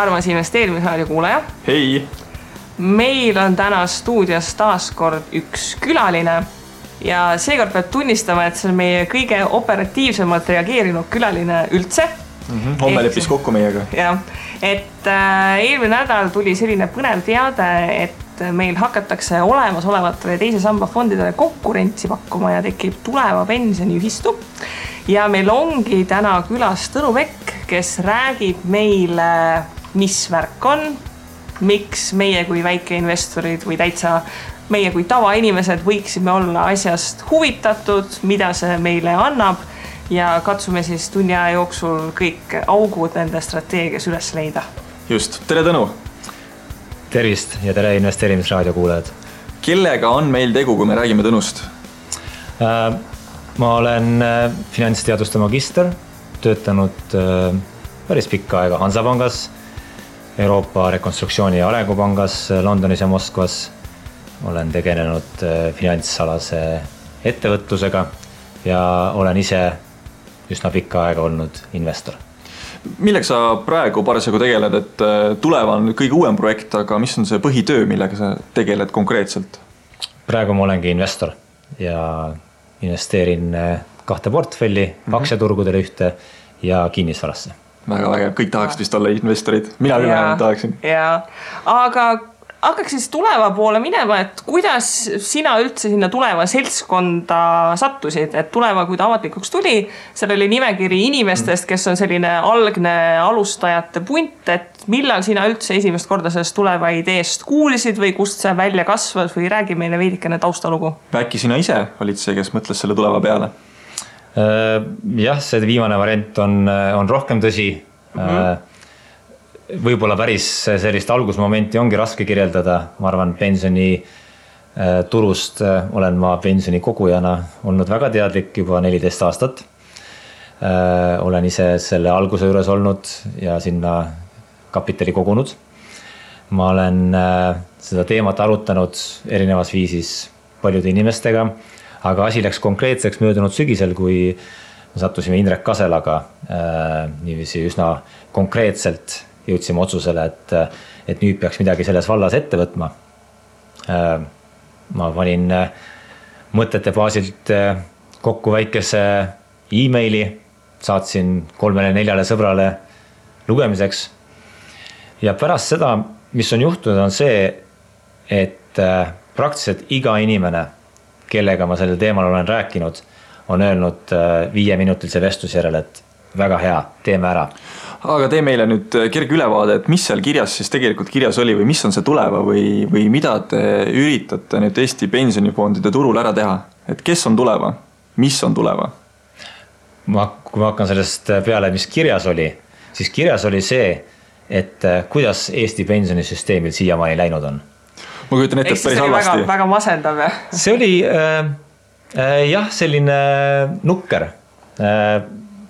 armas investeerimisraadio kuulaja. Hei! Meil on täna stuudios taas kord üks külaline ja seekord peab tunnistama, et see on meie kõige operatiivsemalt reageerinud külaline üldse. Homme leppis kokku meiega. Ja, et eelmine nädal tuli selline põnev teade, et meil hakatakse olemasolevatele teise samba fondidele konkurentsi pakkuma ja tekib tuleva pensioniühistu. Ja meil ongi täna külas Tõnu Pekk, kes räägib meile, mis värk on, miks meie kui väikeinvestorid või täitsa meie kui tavainimesed võiksime olla asjast huvitatud, mida see meile annab ja katsume siis tunni aja jooksul kõik augud nende strateegias üles leida. Just, tere Tõnu! Tervist ja tere investeerimisraadio kuulajad. Kellega on meil tegu, kui me räägime Tõnust? Ma olen finantsteaduste magister, töötanud päris pikka aega Hansapangas, Euroopa Rekonstruktsiooni ja Arengupangas Londonis ja Moskvas. Olen tegelenud finantsalase ettevõtlusega ja olen ise üsna pikka aega olnud investor. Milleks sa praegu parasjagu tegeled, et tuleva on kõige uuem projekt, aga mis on see põhitöö, millega sa tegeled konkreetselt? Praegu ma olengi investor ja investeerin 2 portfelli, aktsiaturgudele ühte ja kinnisvarasse. Väga vägev, kõik tahaksid vist olla investorid. Mina küll vähemalt tahaksin. Ja, aga hakkaks siis tuleva poole minema, et kuidas sina üldse sinna tuleva seltskonda sattusid, et tuleva, kui ta avalikuks tuli, seal oli nimekiri inimestest, kes on selline algne alustajate punt, et millal sina üldse esimest korda sellest tuleva ideest kuulisid või kust see välja kasvas või räägi meile veidikene taustalugu? Äkki sina ise olid see, kes mõtles selle tuleva peale? Jah, see viimane variant on rohkem tõsi. Võib-olla päris sellist algusmomenti ongi raske kirjeldada. Ma arvan, pensioni turust olen ma pensioni kogujana olnud väga teadlik juba 14 aastat. Olen ise selle alguse juures olnud ja sinna kapitali kogunud. Ma olen seda teemat arutanud erinevas viisis paljude inimestega, aga asi läks konkreetseks möödunud sügisel, kui sattusime Indrek Kaselaga niiviisi üsna konkreetselt jõudsime otsusele, et nüüd peaks midagi selles vallas ette võtma. Ma panin mõtete baasilt kokku väikese e-maili, saatsin 3-4 sõbrale lugemiseks. Ja pärast seda, mis on juhtunud, on see, et praktiliselt iga inimene, kellega ma sellel teemal olen rääkinud, on öelnud 5-minutilise vestluse järel, et väga hea, teeme ära. Aga tee meile nüüd kerge ülevaade, et mis seal kirjas siis tegelikult kirjas oli või mis on see tuleva või mida te üritate nüüd Eesti pensionifondide turul ära teha? Et kes on tuleva? Mis on tuleva? Kui ma hakkan sellest peale, mis kirjas oli, siis kirjas oli see, et kuidas Eesti pensionisüsteemil siiamaani läinud on. Ma kujutan ette, et päris halvasti. Väga masendav. See oli jah, selline nukker.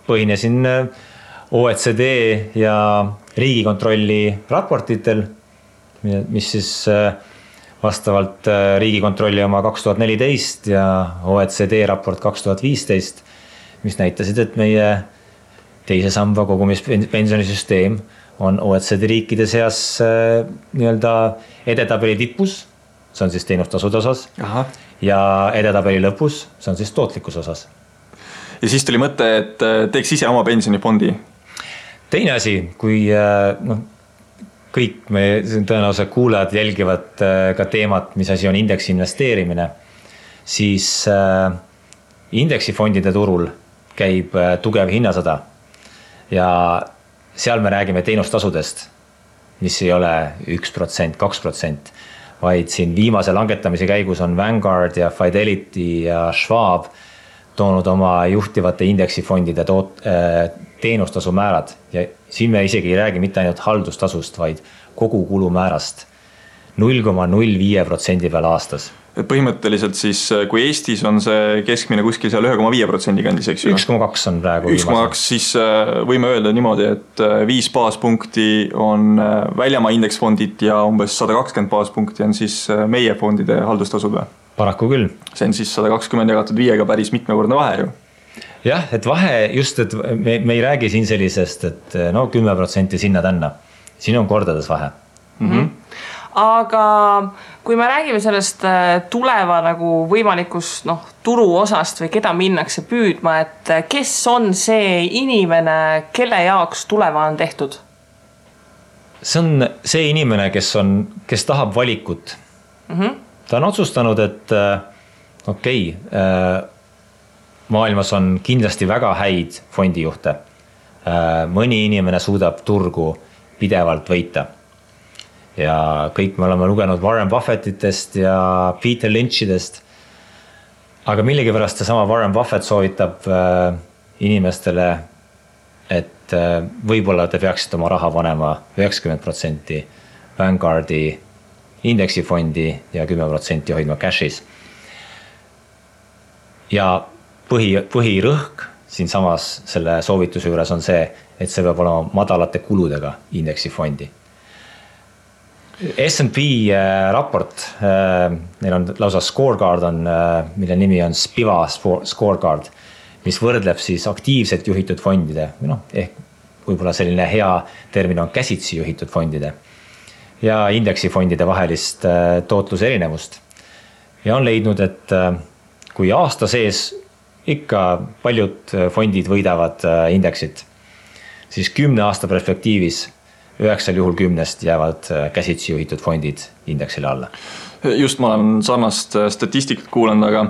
Põhinesin OECD ja Riigikontrolli raportitel, mis siis vastavalt Riigikontrolli oma 2014 ja OECD raport 2015, mis näitasid, et meie teise samba kogumispensionisüsteem on OECD riikide seas nii-öelda edetabeli tipus, see on siis teenustasude osas. Aha. Ja edetabeli lõpus, see on siis tootlikkus osas. Ja siis tuli mõte, et teeks ise oma pensionifondi. Teine asi, kui kõik me tõenäoliselt kuulajad jälgivad ka teemat, mis asi on indeksi investeerimine, siis indeksifondide turul käib tugev hinnasõda ja seal me räägime teenustasudest, mis ei ole 1%, 2%, vaid siin viimase langetamise käigus on Vanguard ja Fidelity ja Schwab toonud oma juhtivate indeksifondide teenustasu määrad ja siin me isegi ei räägi mitte ainult haldustasust, vaid kogu kulumäärast 0,05% peal aastas. Põhimõtteliselt siis, kui Eestis on see keskmine kuskil seal 1,5% kandis, eks ju? 1,2 on praegu. 1,2, siis võime öelda niimoodi, et 5 baaspunkti on väljamaa indeksfondid ja umbes 120 baaspunkti on siis meie fondide haldustasud või? Paraku küll. See on siis 120 jagatud 5-ga päris mitmekordne vahe ju. Jah, et vahe just, et me ei räägi siin sellisest, et 10% sinna tänna. siin on kordades vahe. Aga kui me räägime sellest tuleva nagu võimalikust turu osast või keda minnakse püüdma, et kes on see inimene, kelle jaoks tuleva on tehtud? See on see inimene, kes tahab valikut. Ta on otsustanud, et maailmas on kindlasti väga häid fondijuhte. Mõni inimene suudab turgu pidevalt võita. Ja kõik me oleme lugenud Warren Buffettitest ja Peter Lynchidest. Aga millegipärast see sama Warren Buffett soovitab inimestele, et võib-olla te peaksite oma raha panema 90% Vanguardi indeksifondi ja 10% hoidma cash'is. Ja põhirõhk siin samas selle soovituse juures on see, et see peab olema madalate kuludega indeksifondi. S&P raport, neil on lausa scorecard on, mille nimi on Spiva scorecard, mis võrdleb siis aktiivselt juhitud fondide, ehk võib-olla selline hea termin on käsitsi juhitud fondide ja indeksifondide vahelist tootluse erinevust. Ja on leidnud, et kui aasta sees ikka paljud fondid võidavad indeksit, siis 10 aasta perspektiivis 9 juhul 10 jäävad käsitsi juhitud fondid indeksile alla. Just ma olen sarnast statistikat kuulanud, aga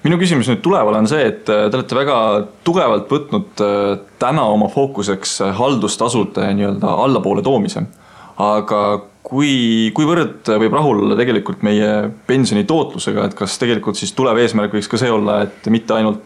minu küsimus nüüd tuleval on see, et te olete väga tugevalt võtnud täna oma fookuseks haldustasude nii-öelda allapoole toomise. Aga kuivõrd võib rahul olla tegelikult meie pensioni tootlusega, et kas tegelikult siis tulev eesmärk võiks ka see olla, et mitte ainult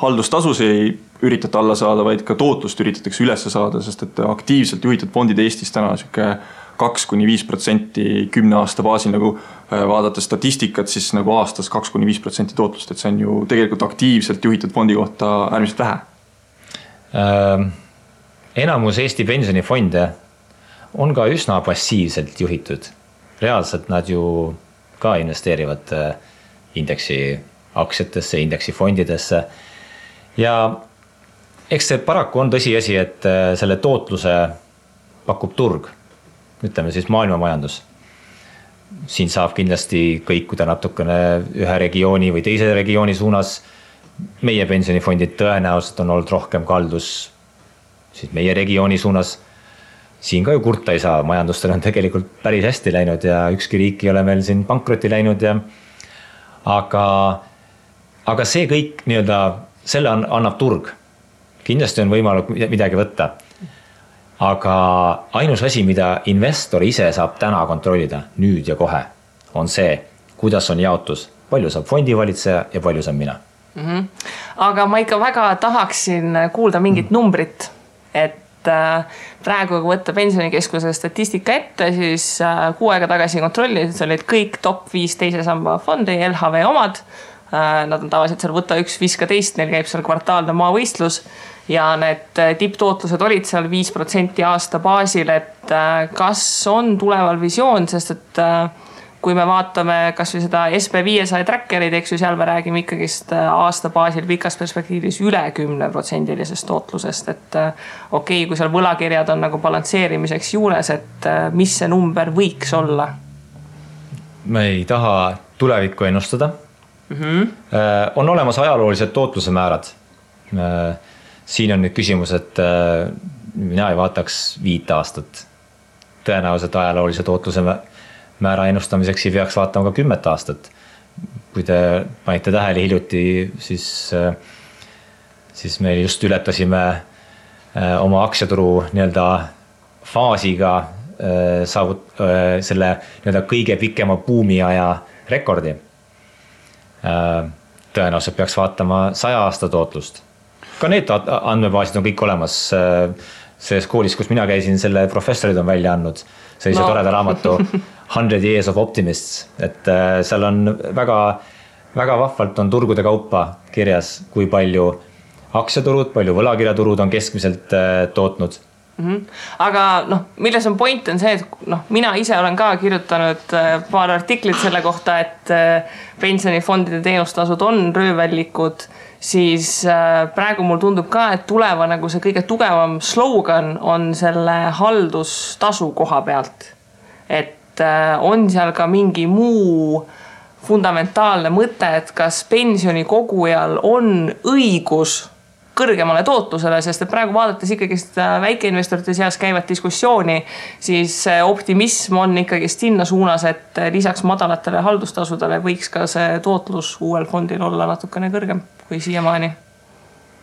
haldustasusi ei üritate alla saada, vaid ka tootlust üritatakse üles saada, sest et aktiivselt juhitud fondid Eestis täna 2-5% 10 aasta baasil, nagu vaadata statistikat, siis nagu aastas 2-5% tootlust, et see on ju tegelikult aktiivselt juhitud fondi kohta äärmiselt vähe. Enamus Eesti pensionifonde on ka üsna passiivselt juhitud. Reaalselt nad ju ka investeerivad indeksi aktsiatesse, indeksi fondidesse. Ja eks see paraku on tõsiasi, et selle tootluse pakub turg, ütleme siis maailmamajandus. Siin saab kindlasti kõikuda natukene ühe regiooni või teise regiooni suunas. Meie pensionifondid tõenäoliselt on olnud rohkem kaldus siis meie regiooni suunas. Siin ka ju kurta ei saa, majandustel on tegelikult päris hästi läinud ja ükski riik ei ole meil siin pankroti läinud. Aga see kõik nii-öelda, selle annab turg. Kindlasti on võimalik midagi võtta. Aga ainus asi, mida investor ise saab täna kontrollida, nüüd ja kohe, on see, kuidas on jaotus. Palju saab fondivalitseja ja palju saab mina. Aga ma ikka väga tahaksin kuulda mingit numbrit, et praegu kui võtta pensionikeskuse statistika ette, siis 6 aega tagasi kontrollisid, see olid kõik top 5 teise samba fondi, LHV omad. Nad on tavaliselt seal võtta 1, viska teist, neil käib seal kvartaalne maavõistlus ja need tipptootlused olid seal 5% aasta baasil, et kas on tuleval visioon, sest et kui me vaatame kas või seda SB500 trackerid, eks ju, seal me räägime ikkagist aasta baasil pikas perspektiivis üle 10% tootlusest, et okei, kui seal võlakirjad on nagu balansseerimiseks juures, et mis see number võiks olla? Me ei taha tulevikku ennustada. On olemas ajaloolised tootluse määrad. Siin on nüüd küsimus, et mina ei vaataks 5 aastat. Tõenäoliselt ajaloolise tootluse määra ennustamiseks ei peaks vaatama ka 10 aastat. Kui te panite tähele hiljuti, siis me just ületasime oma aktsiaturu nii-öelda faasiga selle nii-öelda kõige pikema buumiaja rekordi. Tõenäoliselt peaks vaatama 100 aasta tootlust. Ka need andmebaasid on kõik olemas. Selles koolis, kus mina käisin, selle professorid on välja andnud sellise toreda raamatu 100 Years of Optimists, et seal on väga, väga vahvalt on turgude kaupa kirjas, kui palju aktsiaturud, palju võlakirjaturud on keskmiselt tootnud. Aga milles on point on see, et mina ise olen ka kirjutanud paar artiklit selle kohta, et pensionifondide teenustasud on röövellikud, siis praegu mul tundub ka, et tuleva nagu see kõige tugevam slogan on selle haldustasu koha pealt. Et on seal ka mingi muu fundamentaalne mõte, et kas pensionikogujal on õigus kõrgemale tootlusele, sest et praegu vaadates ikkagi väikeinvestorite seas käivat diskussiooni, siis optimism on ikkagi sinna suunas, et lisaks madalatele haldustasudele võiks ka see tootlus uuel fondil olla natukene kõrgem kui siiamaani.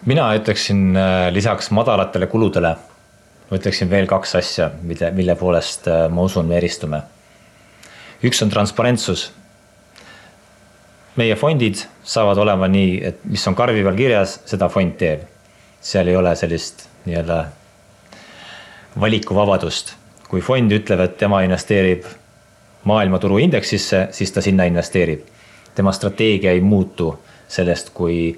Mina ütleksin lisaks madalatele kuludele, ütleksin veel 2 asja, mille poolest ma usun me eristume. Üks on transparentsus. Meie fondid saavad olema nii, et mis on karvi peal kirjas, seda fond teeb. Seal ei ole sellist nii-öelda valikuvabadust. Kui fond ütleb, et tema investeerib maailmaturu indeksisse, siis ta sinna investeerib. Tema strateegia ei muutu sellest, kui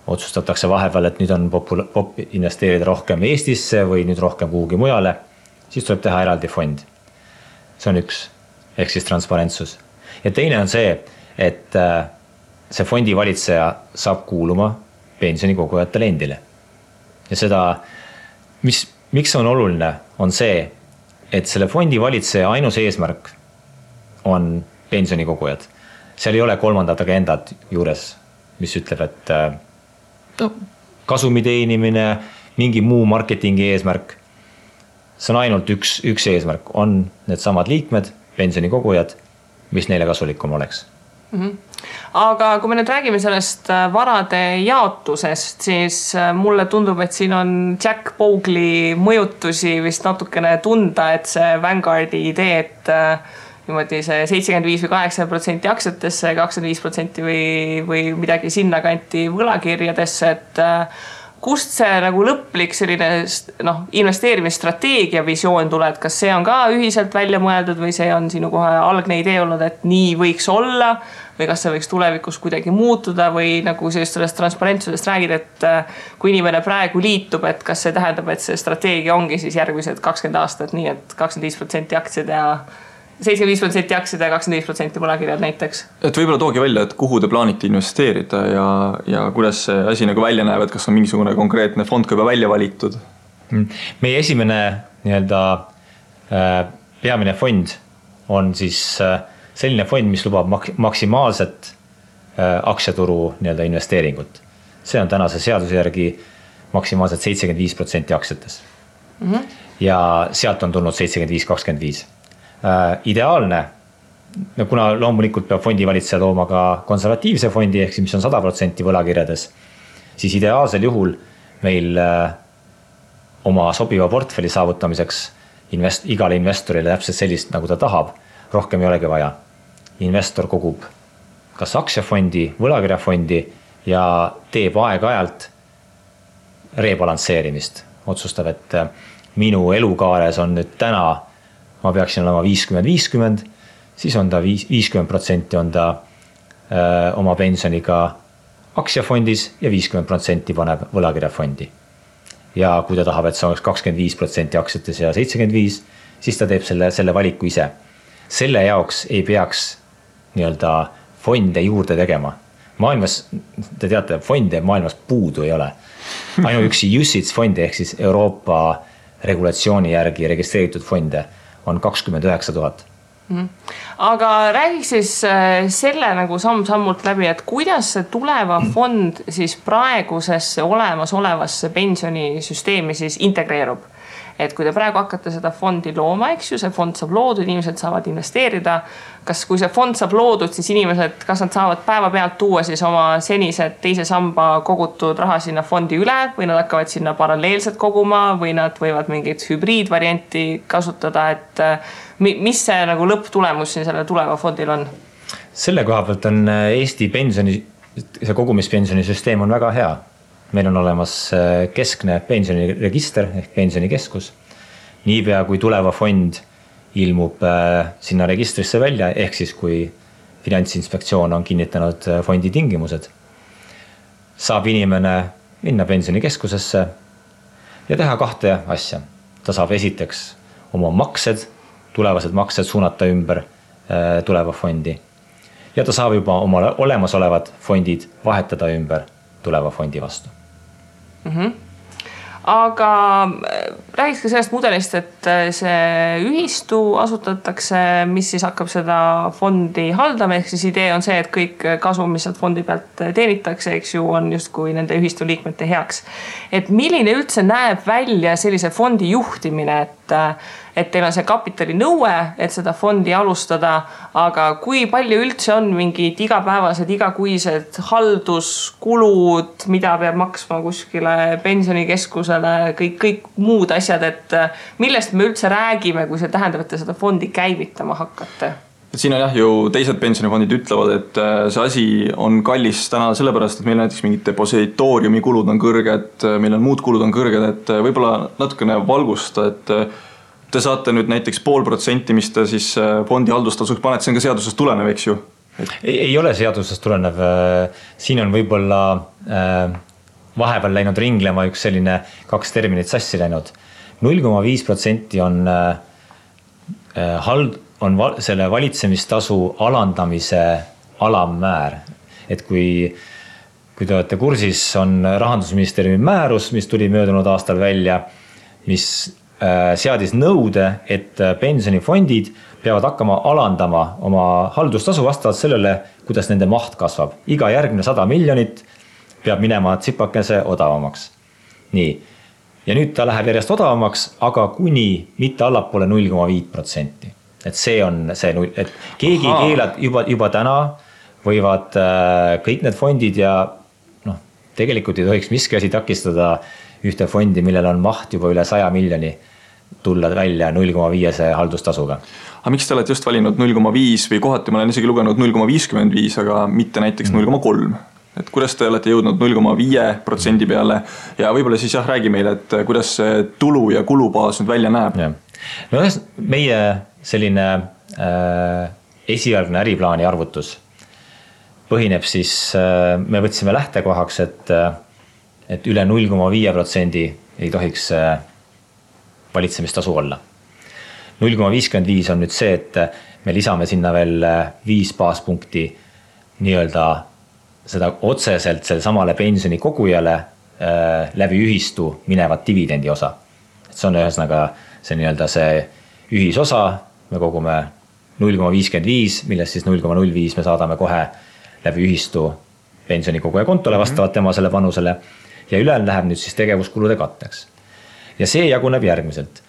otsustatakse vahepeal, et nüüd on popp investeerida rohkem Eestisse või nüüd rohkem kuhugi mujale, siis tuleb teha eraldi fond. See on üks, ehk siis transparentsus. Ja teine on see, et see fondi valitseja saab kuuluma pensionikogujatele endile. Ja seda, miks on oluline, on see, et selle fondi valitseja ainus eesmärk on pensionikogujad. Seal ei ole kolmandat agendat juures, mis ütleb, et kasumi teenimine, mingi muu marketingi eesmärk. See on ainult üks eesmärk, on need samad liikmed, pensionikogujad, mis neile kasulikum oleks. Aga kui me nüüd räägime sellest varade jaotusest, siis mulle tundub, et siin on Jack Bogle mõjutusi vist natukene tunda, et see Vanguardi idee, et niimoodi see 75 või 8% aktsiatesse, 25% või midagi sinna kanti võlakirjadesse, et kust see nagu lõplik selline investeerimisstrateegia visioon tuleb, kas see on ka ühiselt välja mõeldud või see on sinu kohe algne idee olnud, et nii võiks olla või kas see võiks tulevikus kuidagi muutuda või nagu sellest transparentsusest räägid, et kui inimene praegu liitub, et kas see tähendab, et see strateegia ongi siis järgmised 20 aastat nii, et 25% aktsiad ja 75% aktsiad ja 25% võlakirjad näiteks. Et võib-olla toogi välja, et kuhu te plaanite investeerida ja kuidas see asi nagu välja näeb, et kas on mingisugune konkreetne fond ka juba välja valitud? Meie esimene nii-öelda peamine fond on siis selline fond, mis lubab maksimaalset aktsiaturu nii-öelda investeeringut. See on tänase seaduse järgi maksimaalselt 75% aktsiates. Ja sealt on tulnud 75-25. Ideaalne, kuna loomulikult peab fondi valitseja tooma ka konservatiivse fondi, ehk mis on 100% võlakirjades, siis ideaalsel juhul meil oma sobiva portfelli saavutamiseks igale investorile täpselt sellist, nagu ta tahab, rohkem ei olegi vaja. Investor kogub kas aktsiafondi, võlakirjafondi ja teeb aeg-ajalt rebalansseerimist. Otsustab, et minu elukaares on nüüd täna ma peaksin olema 50-50, siis on ta 50% on ta oma pensioniga aktsiafondis ja 50% paneb võlakirjafondi. Ja kui ta tahab, et see oleks 25% aktsiates ja 75%, siis ta teeb selle valiku ise. Selle jaoks ei peaks nii-öelda fonde juurde tegema. Maailmas, te teate, fonde maailmas puudu ei ole. Ainuüksi UCITS fondi ehk siis Euroopa regulatsiooni järgi registreeritud fonde on 29 000. Aga räägiks siis selle nagu samm-sammult läbi, et kuidas see tuleva fond siis praegusesse olemasolevasse pensionisüsteemi siis integreerub. Et kui te praegu hakkate seda fondi looma, eks ju, see fond saab loodud, inimesed saavad investeerida. Kas kui see fond saab loodud, siis inimesed, kas nad saavad päeva pealt tuua siis oma senised teise samba kogutud raha sinna fondi üle või nad hakkavad sinna paralleelselt koguma või nad võivad mingit hübriidvarianti kasutada, et mis see nagu lõpptulemus siin selle tuleva fondil on? Selle koha pealt on Eesti see kogumispensionisüsteem on väga hea. Meil on olemas keskne pensioniregister ehk pensionikeskus. Niipea kui tuleva fond ilmub sinna registrisse välja, ehk siis kui Finantsinspektsioon on kinnitanud fondi tingimused, saab inimene minna pensionikeskusesse ja teha 2 asja. Ta saab esiteks oma tulevased maksed suunata ümber tuleva fondi ja ta saab juba oma olemasolevad fondid vahetada ümber tuleva fondi vastu. Aga räägiks ka sellest mudelist, et see ühistu asutatakse, mis siis hakkab seda fondi haldama, ehk siis idee on see, et kõik kasum, mis sealt fondi pealt teenitakse, eks ju, on justkui nende ühistu liikmete heaks. Et milline üldse näeb välja sellise fondi juhtimine, et teil on see kapitali nõue, et seda fondi alustada, aga kui palju üldse on mingid igapäevased, igakuised halduskulud, mida peab maksma kuskile pensionikeskusele, kõik muud asjad, et millest me üldse räägime, kui see tähendab, et te seda fondi käivitama hakkate? Siin on ju teised pensionifondid ütlevad, et see asi on kallis täna sellepärast, et meil näiteks mingid depositooriumi kulud on kõrged, meil on muud kulud on kõrged, et võib-olla natukene valgusta, et te saate nüüd näiteks 0,5%, mis te siis fondi haldustasuks panete, see on ka seadusest tulenev, eks ju? Ei ole seadusest tulenev. Siin on võib-olla vahepeal läinud ringlema üks selline 2 terminit sassi läinud. 0,5% on selle valitsemistasu alandamise alammäär. Et kui te olete kursis, on Rahandusministeeriumi määrus, mis tuli möödunud aastal välja, mis seadis nõude, et pensionifondid peavad hakkama alandama oma haldustasu vastavalt sellele, kuidas nende maht kasvab. Iga järgmine 100 miljonit peab minema tsipakese odavamaks. Nii. Ja nüüd ta läheb järjest odavamaks, aga kuni mitte allapoole 0,5%. Et see on see, et keegi keelad juba täna võivad kõik need fondid ja tegelikult ei tohiks miski asi takistada ühte fondi, millel on maht juba üle 100 miljoni tulla välja 0,5 haldustasuga. Aga miks te olete just valinud 0,5 või kohati ma olen isegi lugenud 0,55, aga mitte näiteks 0,3? Et kuidas te olete jõudnud 0,5% peale ja võib-olla siis räägi meile, et kuidas see tulu ja kulubaas nüüd välja näeb? Ja. No meie selline esialgne äriplaani arvutus põhineb siis, me võtsime lähtekohaks, et üle 0,5% ei tohiks valitsemistasu olla. 0,55 on nüüd see, et me lisame sinna veel 5 baaspunkti nii-öelda seda otseselt selle samale pensioni kogujale läbi ühistu minevat dividendi osa. Et see on ühesõnaga see nii-öelda see ühisosa, me kogume 0,55, millest siis 0,05 me saadame kohe läbi ühistu pensionikoguja kontole vastavalt tema selle panusele ja ülejäänud läheb nüüd siis tegevuskulude katteks. Ja see jaguneb järgmiselt.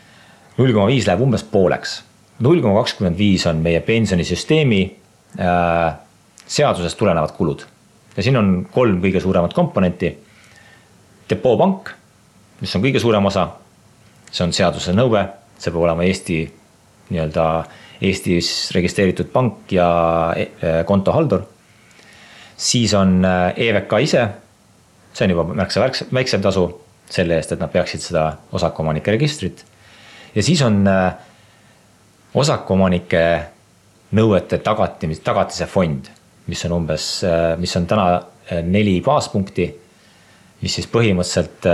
0,5 läheb umbes pooleks. 0,25 on meie pensionisüsteemi seadusest tulenevad kulud. Ja siin on 3 kõige suuremat komponenti. Depoopank, mis on kõige suurem osa, see on seaduse nõue, see peab olema Eestis registreeritud pank ja kontohaldur. Siis on EVK ise, see on juba märksa väiksem tasu selle eest, et nad peaksid seda osakuomanike registrit. Ja siis on osakuomanike nõuete tagatise fond, mis on täna 4 baaspunkti, mis siis põhimõtteliselt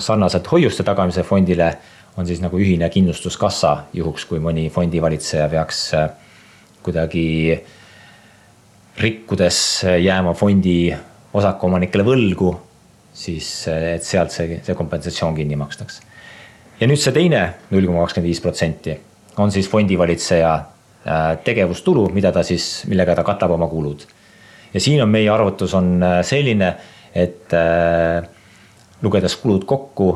sarnaselt hoiuste tagamise fondile on siis nagu ühine kindlustuskassa juhuks, kui mõni fondivalitseja peaks kuidagi rikkudes jääma fondi osakuomanikele võlgu, siis et sealt see kompensatsioon kinni makstaks. Ja nüüd see teine 0,25% on siis fondivalitseja tegevustulu, millega ta katab oma kulud. Ja siin on meie arvutus on selline, et lugedes kulud kokku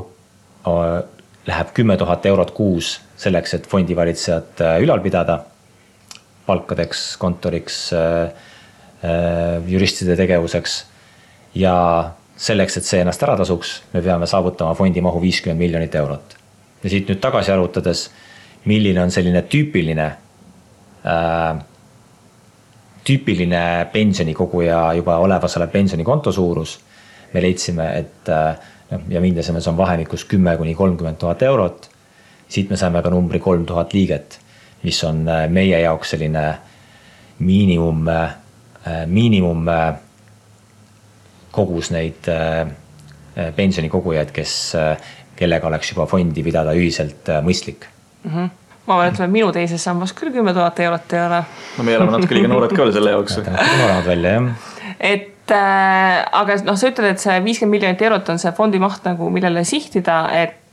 läheb 10 000 eurot kuus selleks, et fondivalitsejat ülal pidada, palkadeks, kontoriks, juristide tegevuseks ja selleks, et see ennast ära tasuks, me peame saavutama fondi mahu 50 miljonit eurot. Ja siit nüüd tagasi arvutades, milline on selline tüüpiline pensionikoguja juba olevasele pensionikonto suurus, me leidsime, et ja mindasime, see on vahemikus 10 kuni 30 000 eurot. Siit me saime ka numbri 3000 liiget, mis on meie jaoks selline miinimum kogus neid pensionikogujaid, kellega oleks juba fondi pidada ühiselt mõistlik. Ma olen, et minu teises sambas küll 10 000 eurot ei ole. No me oleme natuke liiga noored ka veel selle jaoks. Noored välja, jah. Aga sa ütled, et see 50 miljonit eurot on see fondi maht nagu millele sihtida, et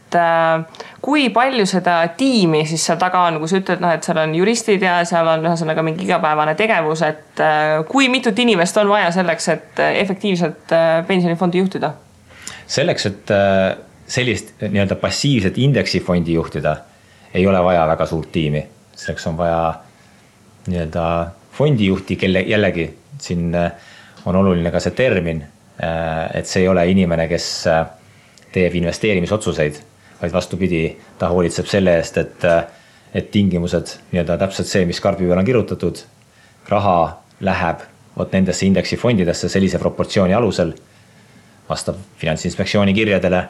kui palju seda tiimi siis seal taga on, kui sa ütled, et seal on juristid ja seal on ühesõnaga mingi igapäevane tegevus, et kui mitut inimest on vaja selleks, et efektiivselt pensionifondi juhtida? Selleks, et sellist nii-öelda passiivset indeksifondi juhtida, ei ole vaja väga suurt tiimi. Selleks on vaja nii-öelda fondijuhti, kelle jällegi siin on oluline ka see termin, et see ei ole inimene, kes teeb investeerimisotsuseid, vaid vastupidi, ta hoolitseb selle eest, et tingimused nii-öelda täpselt see, mis karbi peal on kirjutatud, raha läheb nendesse indeksifondidesse sellise proportsiooni alusel, vastab Finantsinspektsiooni kirjadele,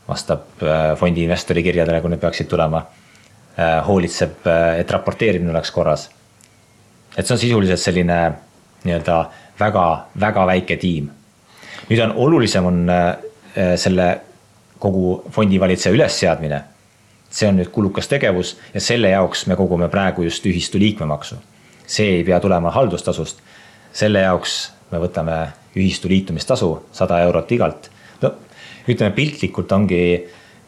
vastab fondi investori kirjadele, kui need peaksid tulema, hoolitseb, et raporteerimine oleks korras. Et see on sisuliselt selline nii-öelda väga väike tiim. Nüüd on olulisem on selle kogu fondivalitseja ülesseadmine. See on nüüd kulukas tegevus ja selle jaoks me kogume praegu just ühistu liikmemaksu. See ei pea tulema haldustasust. Selle jaoks me võtame ühistu liitumistasu 100 eurot igalt. No, ütleme piltlikult ongi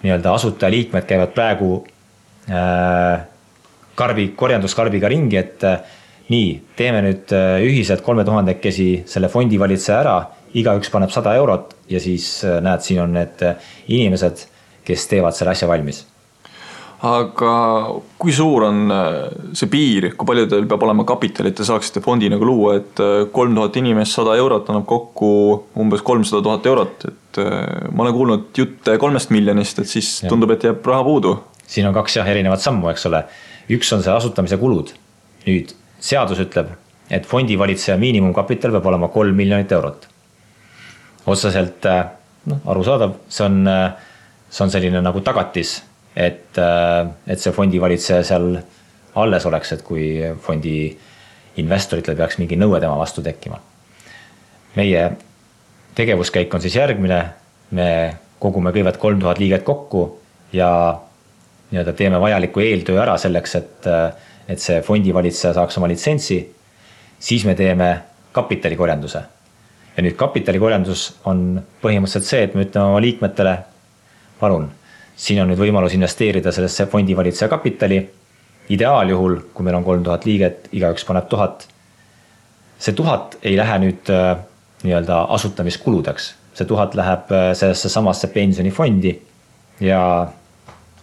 nii-öelda asutajaliikmed käivad praegu korjanduskarbiga ringi, et nii, teeme nüüd ühiselt 3000-kesi selle fondivalitseja ära, igaüks paneb 100 eurot ja siis näed, siin on need inimesed, kes teevad selle asja valmis. Aga kui suur on see piir, kui palju teil peab olema kapitalit, te saaksite fondi nagu luua, et 3000 inimest 100 eurot annab kokku umbes 300 000 eurot, et ma olen kuulnud jutte 3 miljonist, et siis tundub, et jääb raha puudu. Siin on 2 erinevat sammu, eks ole. Üks on see asutamise kulud. Nüüd seadus ütleb, et fondivalitseja miinimumkapital peab olema 3 miljonit eurot. Otseselt arusaadav, see on selline nagu tagatis, et see fondivalitseja seal alles oleks, et kui fondi investoritel peaks mingi nõue tema vastu tekkima. Meie tegevuskäik on siis järgmine, me kogume kõigepealt 3000 liiget kokku ja nii-öelda teeme vajaliku eeltöö ära selleks, et see fondivalitseja saaks oma litsentsi, siis me teeme kapitalikorjanduse. Ja nüüd kapitalikorjandus on põhimõtteliselt see, et me ütleme oma liikmetele, palun, siin on nüüd võimalus investeerida sellesse fondivalitseja kapitali. Ideaaljuhul, kui meil on 3000 liiget, igaüks paneb 1000. See 1000 ei lähe nüüd nii-öelda asutamiskuludeks. See 1000 läheb sellesse samasse pensionifondi ja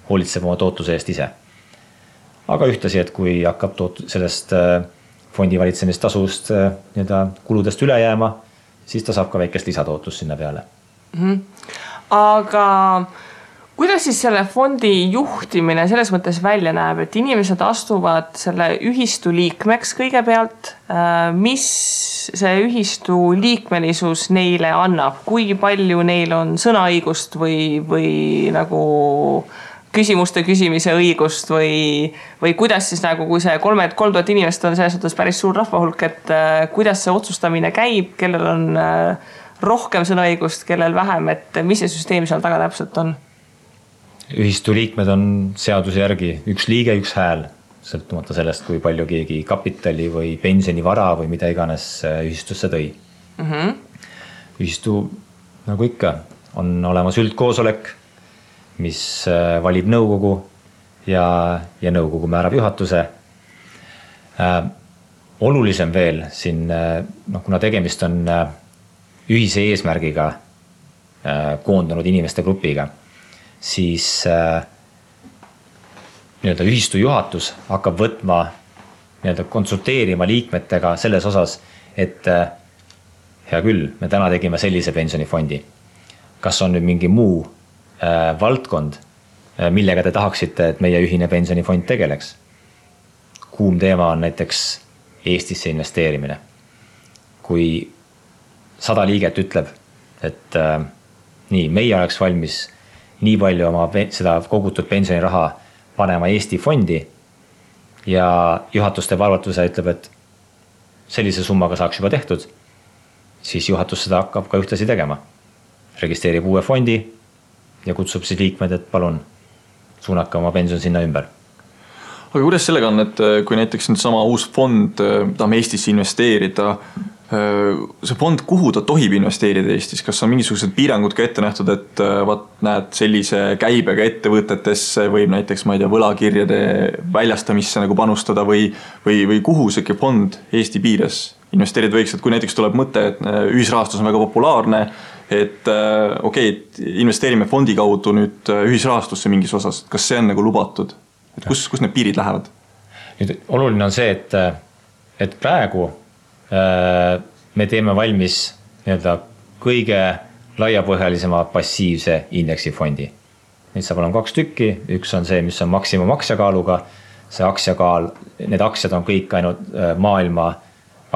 hoolitseb oma tootluse eest ise. Aga ühtlasi, et kui hakkab sellest fondivalitsemistasust nii-öelda kuludest üle jääma, siis ta saab ka väikest lisatootlust sinna peale. Aga kuidas siis selle fondi juhtimine selles mõttes välja näeb, et inimesed astuvad selle ühistu liikmeks kõigepealt, mis see ühistu liikmelisus neile annab, kui palju neil on sõnaõigust või nagu küsimuste küsimise õigust või kuidas siis nagu, kui see 3000 inimest on selles suhtes päris suur rahvahulk, et kuidas see otsustamine käib, kellel on rohkem sõnaõigust, kellel vähem, et mis see süsteem seal taga täpselt on? Ühistu liikmed on seaduse järgi üks liige, üks hääl, sõltumata sellest, kui palju keegi kapitali või pensionivara või mida iganes ühistusse tõi. Ühistu, nagu ikka, on olemas üldkoosolek, mis valib nõukogu ja nõukogu määrab juhatuse. Olulisem veel siin, kuna tegemist on ühise eesmärgiga koondunud inimeste grupiga, siis nii-öelda ühistu juhatus hakkab võtma, nii-öelda konsulteerima liikmetega selles osas, et hea küll, me täna tegime sellise pensionifondi. Kas on nüüd mingi muu valdkond, millega te tahaksite, et meie ühine pensionifond tegeleks? Kuum teema on näiteks Eestisse investeerimine. Kui 100 liiget ütleb, et nii, meie oleks valmis nii palju oma seda kogutud pensioniraha panema Eesti fondi ja juhatus teeb arvatuse ütleb, et sellise summaga saaks juba tehtud, siis juhatus seda hakkab ka ühtlasi tegema. Registreerib uue fondi ja kutsub siis liikmed, et palun suunake oma pension sinna ümber. Aga kuidas sellega on, et kui näiteks nüüd sama uus fond tahame Eestisse investeerida, see fond, kuhu ta tohib investeerida Eestis, kas on mingisugused piirangud ka ette nähtud, et näed sellise käibega ettevõtetesse võib näiteks, ma ei tea, võlakirjade väljastamisse nagu panustada või kuhu see fond Eesti piires investeerida võiks, et kui näiteks tuleb mõte, et ühisrahastus on väga populaarne, et et investeerime fondi kaudu nüüd ühisrahastusse mingis osas, kas see on nagu lubatud, et kus need piirid lähevad? Nüüd oluline on see, et praegu me teeme valmis kõige laiapõhjalisema passiivse indeksifondi. Neid saab olema 2 tükki, üks on see, mis on maksimum aktsiakaaluga, see aktsiakaal, need aktsiad on kõik ainult maailma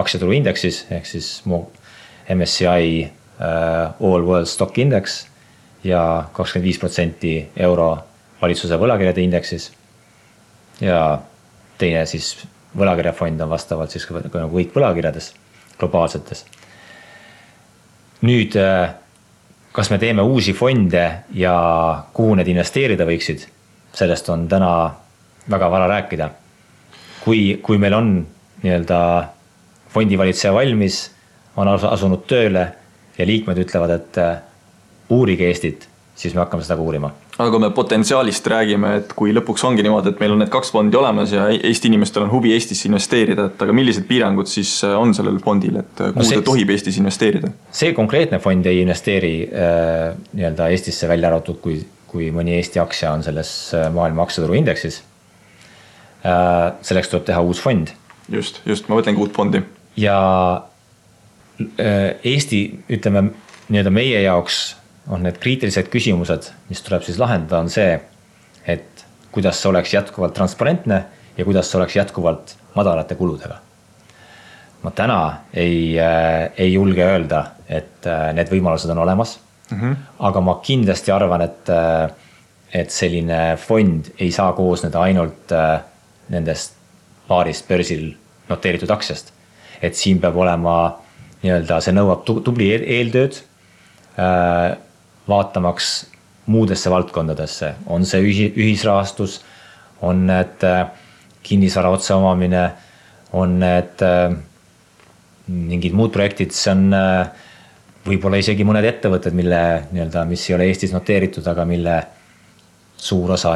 aktsiaturu indeksis, ehk siis MSCI All World Stock Index ja 25% euro valitsuse võlakirjade indeksis ja teine siis võlakirjafond on vastavalt siis kõik võlakirjades globaalsetes. Nüüd, kas me teeme uusi fonde ja kuhu need investeerida võiksid, sellest on täna väga vara rääkida. Kui meil on fondivalitseja valmis, on asunud tööle ja liikmed ütlevad, et uurige Eestit, siis me hakkame seda ka uurima. Aga kui me potentsiaalist räägime, et kui lõpuks ongi niimoodi, et meil on need 2 fondi olemas ja Eesti inimestel on huvi Eestisse investeerida, et aga millised piirangud siis on sellel fondil, et kuhu ta tohib Eestis investeerida? See konkreetne fond ei investeeri Eestisse välja arvatud, kui mõni Eesti aktsia on selles maailma aktsiaturu indeksis. Selleks tuleb teha uus fond. Just, ma mõtlengi uut fondi. Ja Eesti, ütleme, meie jaoks on need kriitilised küsimused, mis tuleb siis lahendada, on see, et kuidas see oleks jätkuvalt transparentne ja kuidas see oleks jätkuvalt madalate kuludega. Ma täna ei julge öelda, et need võimalused on olemas, aga ma kindlasti arvan, et selline fond ei saa koosneda ainult nendest paarist börsil noteeritud aktsiast. Et siin peab olema, see nõuab tubli eeltööd, vaatamaks muudesse valdkondadesse. On see ühisrahastus, on need kinnisvara otseomamine, on need mingid muud projektid, see on võib-olla isegi mõned ettevõtted, mis ei ole Eestis noteeritud, aga mille suur osa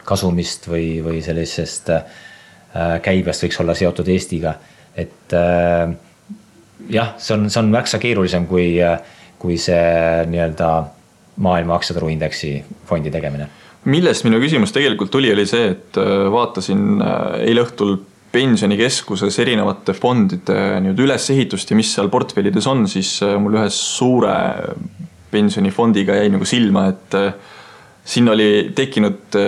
kasumist või sellisest käibest võiks olla seotud Eestiga. Et jah, see on märksa keerulisem kui see maailma aktsiaturu indeksi fondi tegemine. Millest minu küsimus tegelikult oli see, et vaatasin eile õhtul pensionikeskuses erinevate fondide ülesehitust ja mis seal portfellides on, siis mul ühe suure pensionifondiga jäi silma, et siin oli tekkinud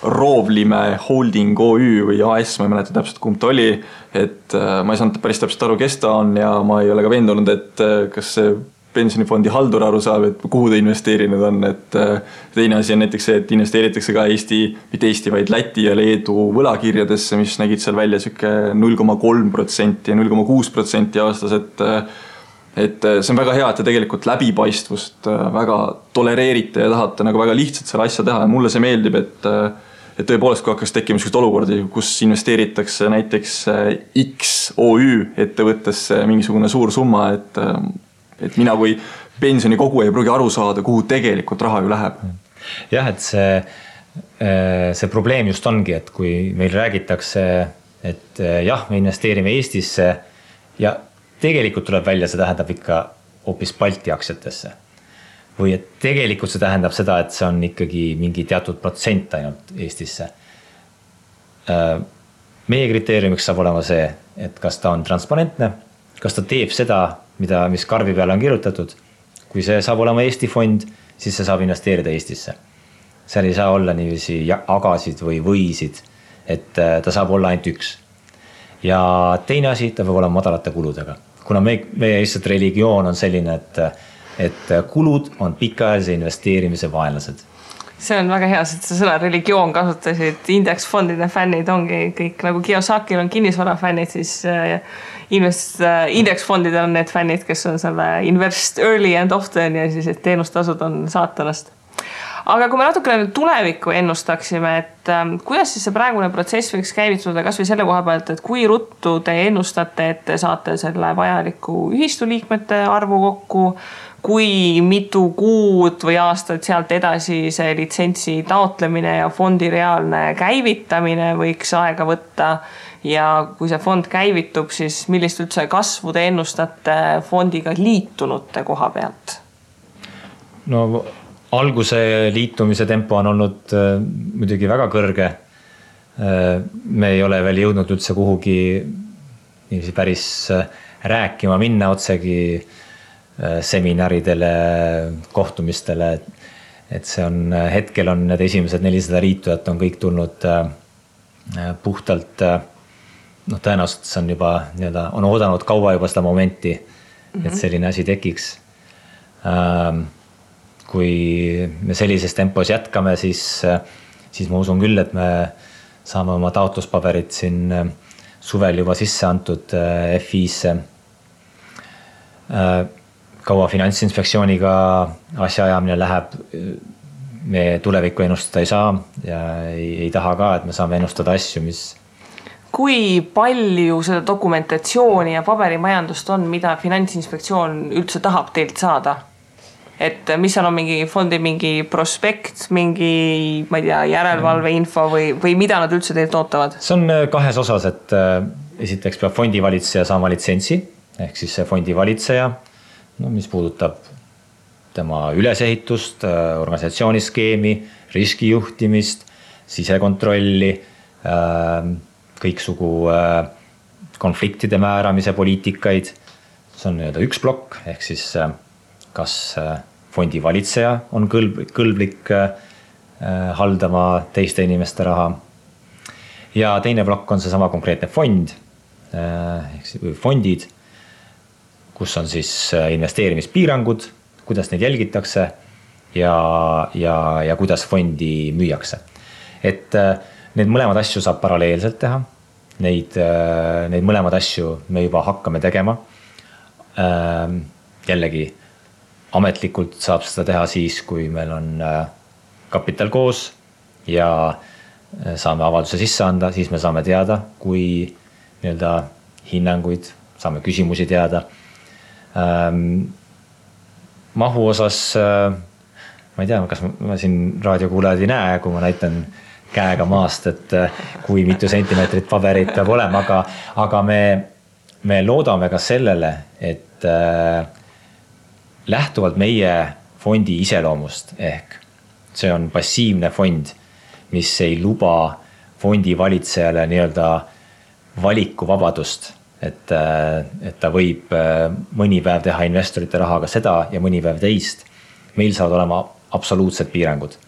Roovlime Holding OÜ või AS, ma ei mäleta täpselt kumb ta oli, et ma ei saanud päris täpselt aru, kes ta on ja ma ei ole ka veendunud, et kas see pensionifondi haldur aru saab, et kuhu ta investeerinud on, et teine asi on näiteks see, et investeeritakse ka mitte Eesti, vaid Läti ja Leedu võlakirjadesse, mis nägid seal välja 0,3% ja 0,6% aastas, et see on väga hea, et te tegelikult läbipaistvust väga tolereerite ja tahate väga lihtsalt selle asja teha ja mulle see meeldib, et tõepoolest, kui hakkas tekkima sellised olukordi, kus investeeritakse näiteks X OÜ ettevõttesse mingisugune suur summa, et mina kui pensionikogu ei pruugi aru saada, kuhu tegelikult raha ju läheb. Jah, et see probleem just ongi, et kui meil räägitakse, et jah, me investeerime Eestisse ja tegelikult tuleb välja, see tähendab ikka hoopis Balti aktsiatesse. Või et tegelikult see tähendab seda, et see on ikkagi mingi teatud protsent ainult Eestisse. Meie kriteeriumiks saab olema see, et kas ta on transparentne, kas ta teeb seda, mis karbi peale on kirjutatud. Kui see saab olema Eesti fond, siis see saab investeerida Eestisse. Seal ei saa olla niiviisi agasid või võisid, et ta saab olla ainult üks. Ja teine asi, ta peab olema madalate kuludega. Kuna meie lihtsalt religioon on selline, et kulud on pikaajalise investeerimise vaenlased. See on väga hea, et sa sõna religioon kasutasid, indeksfondide fännid ongi kõik, nagu Kiyosakil on kinnisvara fännid, siis indeksfondidel on need fännid, kes on selle invest early and often ja siis et teenustasud on saatanast. Aga kui me natukene tulevikku ennustaksime, et kuidas siis see praegune protsess võiks käivituda kas või selle koha pealt, et kui ruttu te ennustate, et te saate selle vajaliku ühistuliikmete arvu kokku, kui mitu kuud või aastat sealt edasi see litsentsi taotlemine ja fondi reaalne käivitamine võiks aega võtta ja kui see fond käivitub, siis millist üldse kasvu te ennustate fondiga liitunute koha pealt? No alguse liitumise tempo on olnud muidugi väga kõrge. Me ei ole veel jõudnud üldse kuhugi päris rääkima minna otsegi seminaridele, kohtumistele, et see on, hetkel on need esimesed 400 liitujat on kõik tulnud puhtalt, tõenäoliselt see on juba on oodanud kaua juba seda momenti, et selline asi tekiks. Kui me sellises tempos jätkame, siis ma usun küll, et me saame oma taotluspaberid siin suvel juba sisse antud FI-sse. Kaua Finantsinspektsiooniga asjaajamine läheb, me tulevikku ennustada ei saa ja ei taha ka, et me saame ennustada asju, mis... Kui palju seda dokumentatsiooni ja paberimajandust on, mida Finantsinspektsioon üldse tahab teilt saada? Et mis on mingi fondi mingi prospekt, mingi, ma ei tea, järelevalve info või mida nad üldse teilt ootavad? See on kahes osas, et esiteks peab fondivalitseja saama litsentsi, ehk siis see fondivalitseja, mis puudutab tema ülesehitust, organisatsiooniskeemi, riskijuhtimist, sisekontrolli, kõiksugu konfliktide määramise poliitikaid. See on üks plokk, ehk siis kas fondivalitseja on kõlblik haldama teiste inimeste raha. Ja teine plokk on see sama konkreetne fond, ehk siis fondid, kus on siis investeerimispiirangud, kuidas neid jälgitakse ja kuidas fondi müüakse. Et need mõlemad asju saab paralleelselt teha. Neid mõlemad asju me juba hakkame tegema. Jällegi, ametlikult saab seda teha siis, kui meil on kapital koos ja saame avalduse sisse anda, siis me saame teada, kui hinnanguid, saame küsimusi teada. Mahu osas, ma ei tea, kas ma siin raadiokuulajad ei näe, kui ma näitan käega maast, et kui mitu sentimeetrit paberit peab olema, aga me loodame ka sellele, et lähtuvalt meie fondi iseloomust, ehk see on passiivne fond, mis ei luba fondi valitsejale valikuvabadust, et ta võib mõni päev teha investorite rahaga seda ja mõni päev teist. Meil saavad olema absoluutsed piirangud.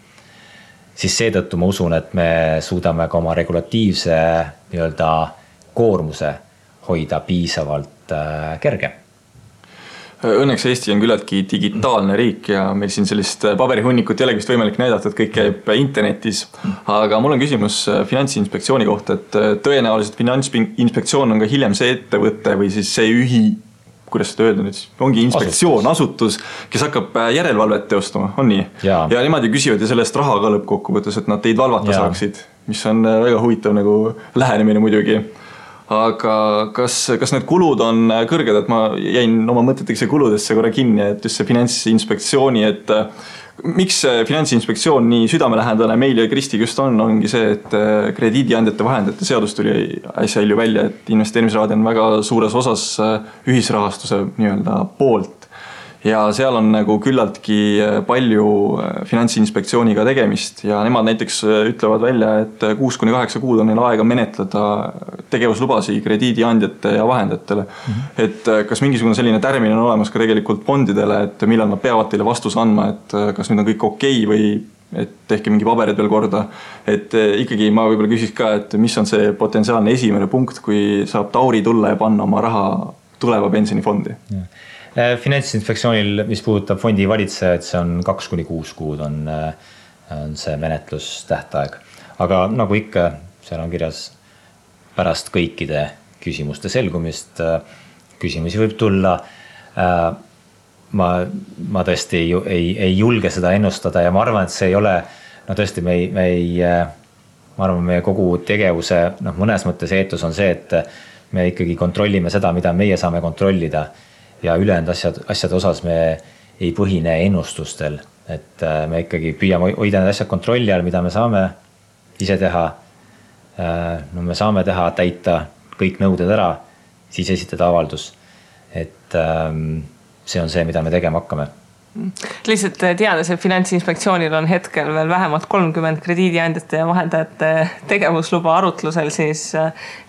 Siis seetõttu ma usun, et me suudame ka oma regulatiivse koormuse hoida piisavalt kerge. Õnneks Eesti on küllaltki digitaalne riik ja meil siin sellist paberihunnikut ei ole vist võimalik näidata, et kõik käib internetis. Aga mul on küsimus Finantsinspektsiooni kohta, et tõenäoliselt Finantsinspektsioon on ka hiljem see ettevõte või siis see kuidas seda öelda nüüd, ongi inspektsioon, asutus, kes hakkab järelevalvet teostama, on nii? Ja nemad ju küsivad ja sellest raha ka lõppkokkuvõttes, et nad teid valvata saaksid, mis on väga huvitav lähenemine muidugi. Aga kas need kulud on kõrged, et ma jäin oma mõteteks ja kuludesse korra kinni, et just see Finantsinspektsiooni, et miks Finantsinspektsioon nii südamelähendane meil ja Kristiga just ongi see, et krediidiandjate vahendajate seadus tuli äsja hilju välja, et investeerimisrahad on väga suures osas ühisrahastuse poolt. Ja seal on küllaltki palju Finantsinspektsiooniga tegemist ja nemad näiteks ütlevad välja, et 6-8 kuud on neil aega menetleda tegevuslubasi krediidiandjate ja vahendajatele. Et kas mingisugune selline tärmin on olemas ka tegelikult fondidele, et millal nad peavad teile vastuse andma, et kas nüüd on kõik okei või et tehke mingi paberid veel korda. Et ikkagi ma võib-olla küsiks ka, et mis on see potentsiaalne esimene punkt, kui saab Tauri tulla ja panna oma raha tuleva pensionifondi? Finantsinspektsioonil, mis puudutab fondi valitsejaid, see on 2-6 kuud on see menetlustähtaeg. Aga nagu ikka, seal on kirjas pärast kõikide küsimuste selgumist, küsimusi võib tulla. ma tõesti ei julge seda ennustada ja ma arvan, et see ei ole, no tõesti, ma arvan, meie kogu tegevuse, mõnes mõttes eetus on see, et me ikkagi kontrollime seda, mida meie saame kontrollida ja ülejäänud asjade osas me ei põhine ennustustel, et me ikkagi püüame hoida need asjad kontrolli all, mida me saame ise teha. No me saame täita kõik nõuded ära, siis esitada avaldus, et see on see, mida me tegema hakkame. Lihtsalt teades, et Finantsinspektsioonil on hetkel veel vähemalt 30 krediidiandjate ja vahendajate tegevusluba arutlusel, siis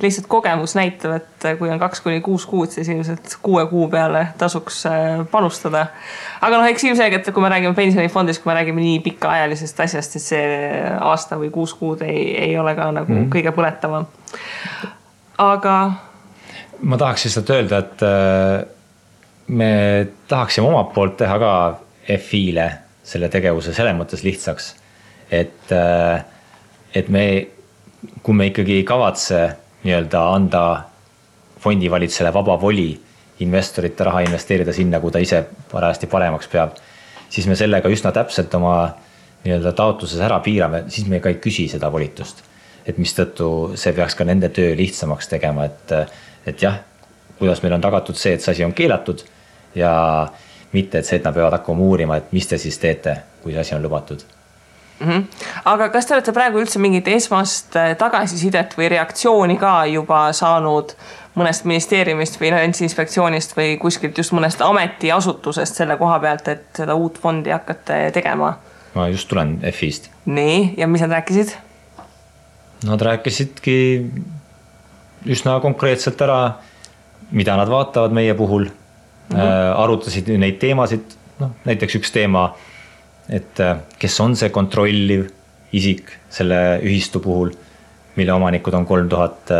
lihtsalt kogemus näitab, et kui on 2-6 kuud, siis ilmselt 6 kuu peale tasuks panustada. Aga eks ilmselgelt, kui me räägime pensionifondist, kui me räägime nii pikaajalisest asjast, siis see aasta või 6 kuud ei ole ka nagu kõige põletavam. Aga ma tahaks lihtsalt öelda, et me tahaksime omalt poolt teha ka FI-le selle tegevuse selles mõttes lihtsaks, et kui me ikkagi ei kavatse anda fondivalitsele vaba voli investorite raha investeerida sinna, kui ta ise parajasti paremaks peab, siis me sellega üsna täpselt oma taotluses ära piirame, siis me ka ei küsi seda volitust. Et mis tõttu see peaks ka nende töö lihtsamaks tegema, et jah, kuidas meil on tagatud see, et see asi on keelatud ja mitte, et see, et nad peavad hakkama uurima, et mis te siis teete, kui see asi on lubatud. Aga kas te olete praegu üldse mingit esmast tagasisidet või reaktsiooni ka juba saanud mõnest ministeeriumist või Finantsinspektsioonist või kuskilt just mõnest ametiasutusest selle koha pealt, et seda uut fondi hakkate tegema? Ma just tulen FI-st. Nii, ja mis nad rääkisid? Nad rääkisidki üsna konkreetselt ära, mida nad vaatavad meie puhul. Arutasid neid teemasid, näiteks üks teema, et kes on see kontrolliv isik selle ühistu puhul, mille omanikud on 3000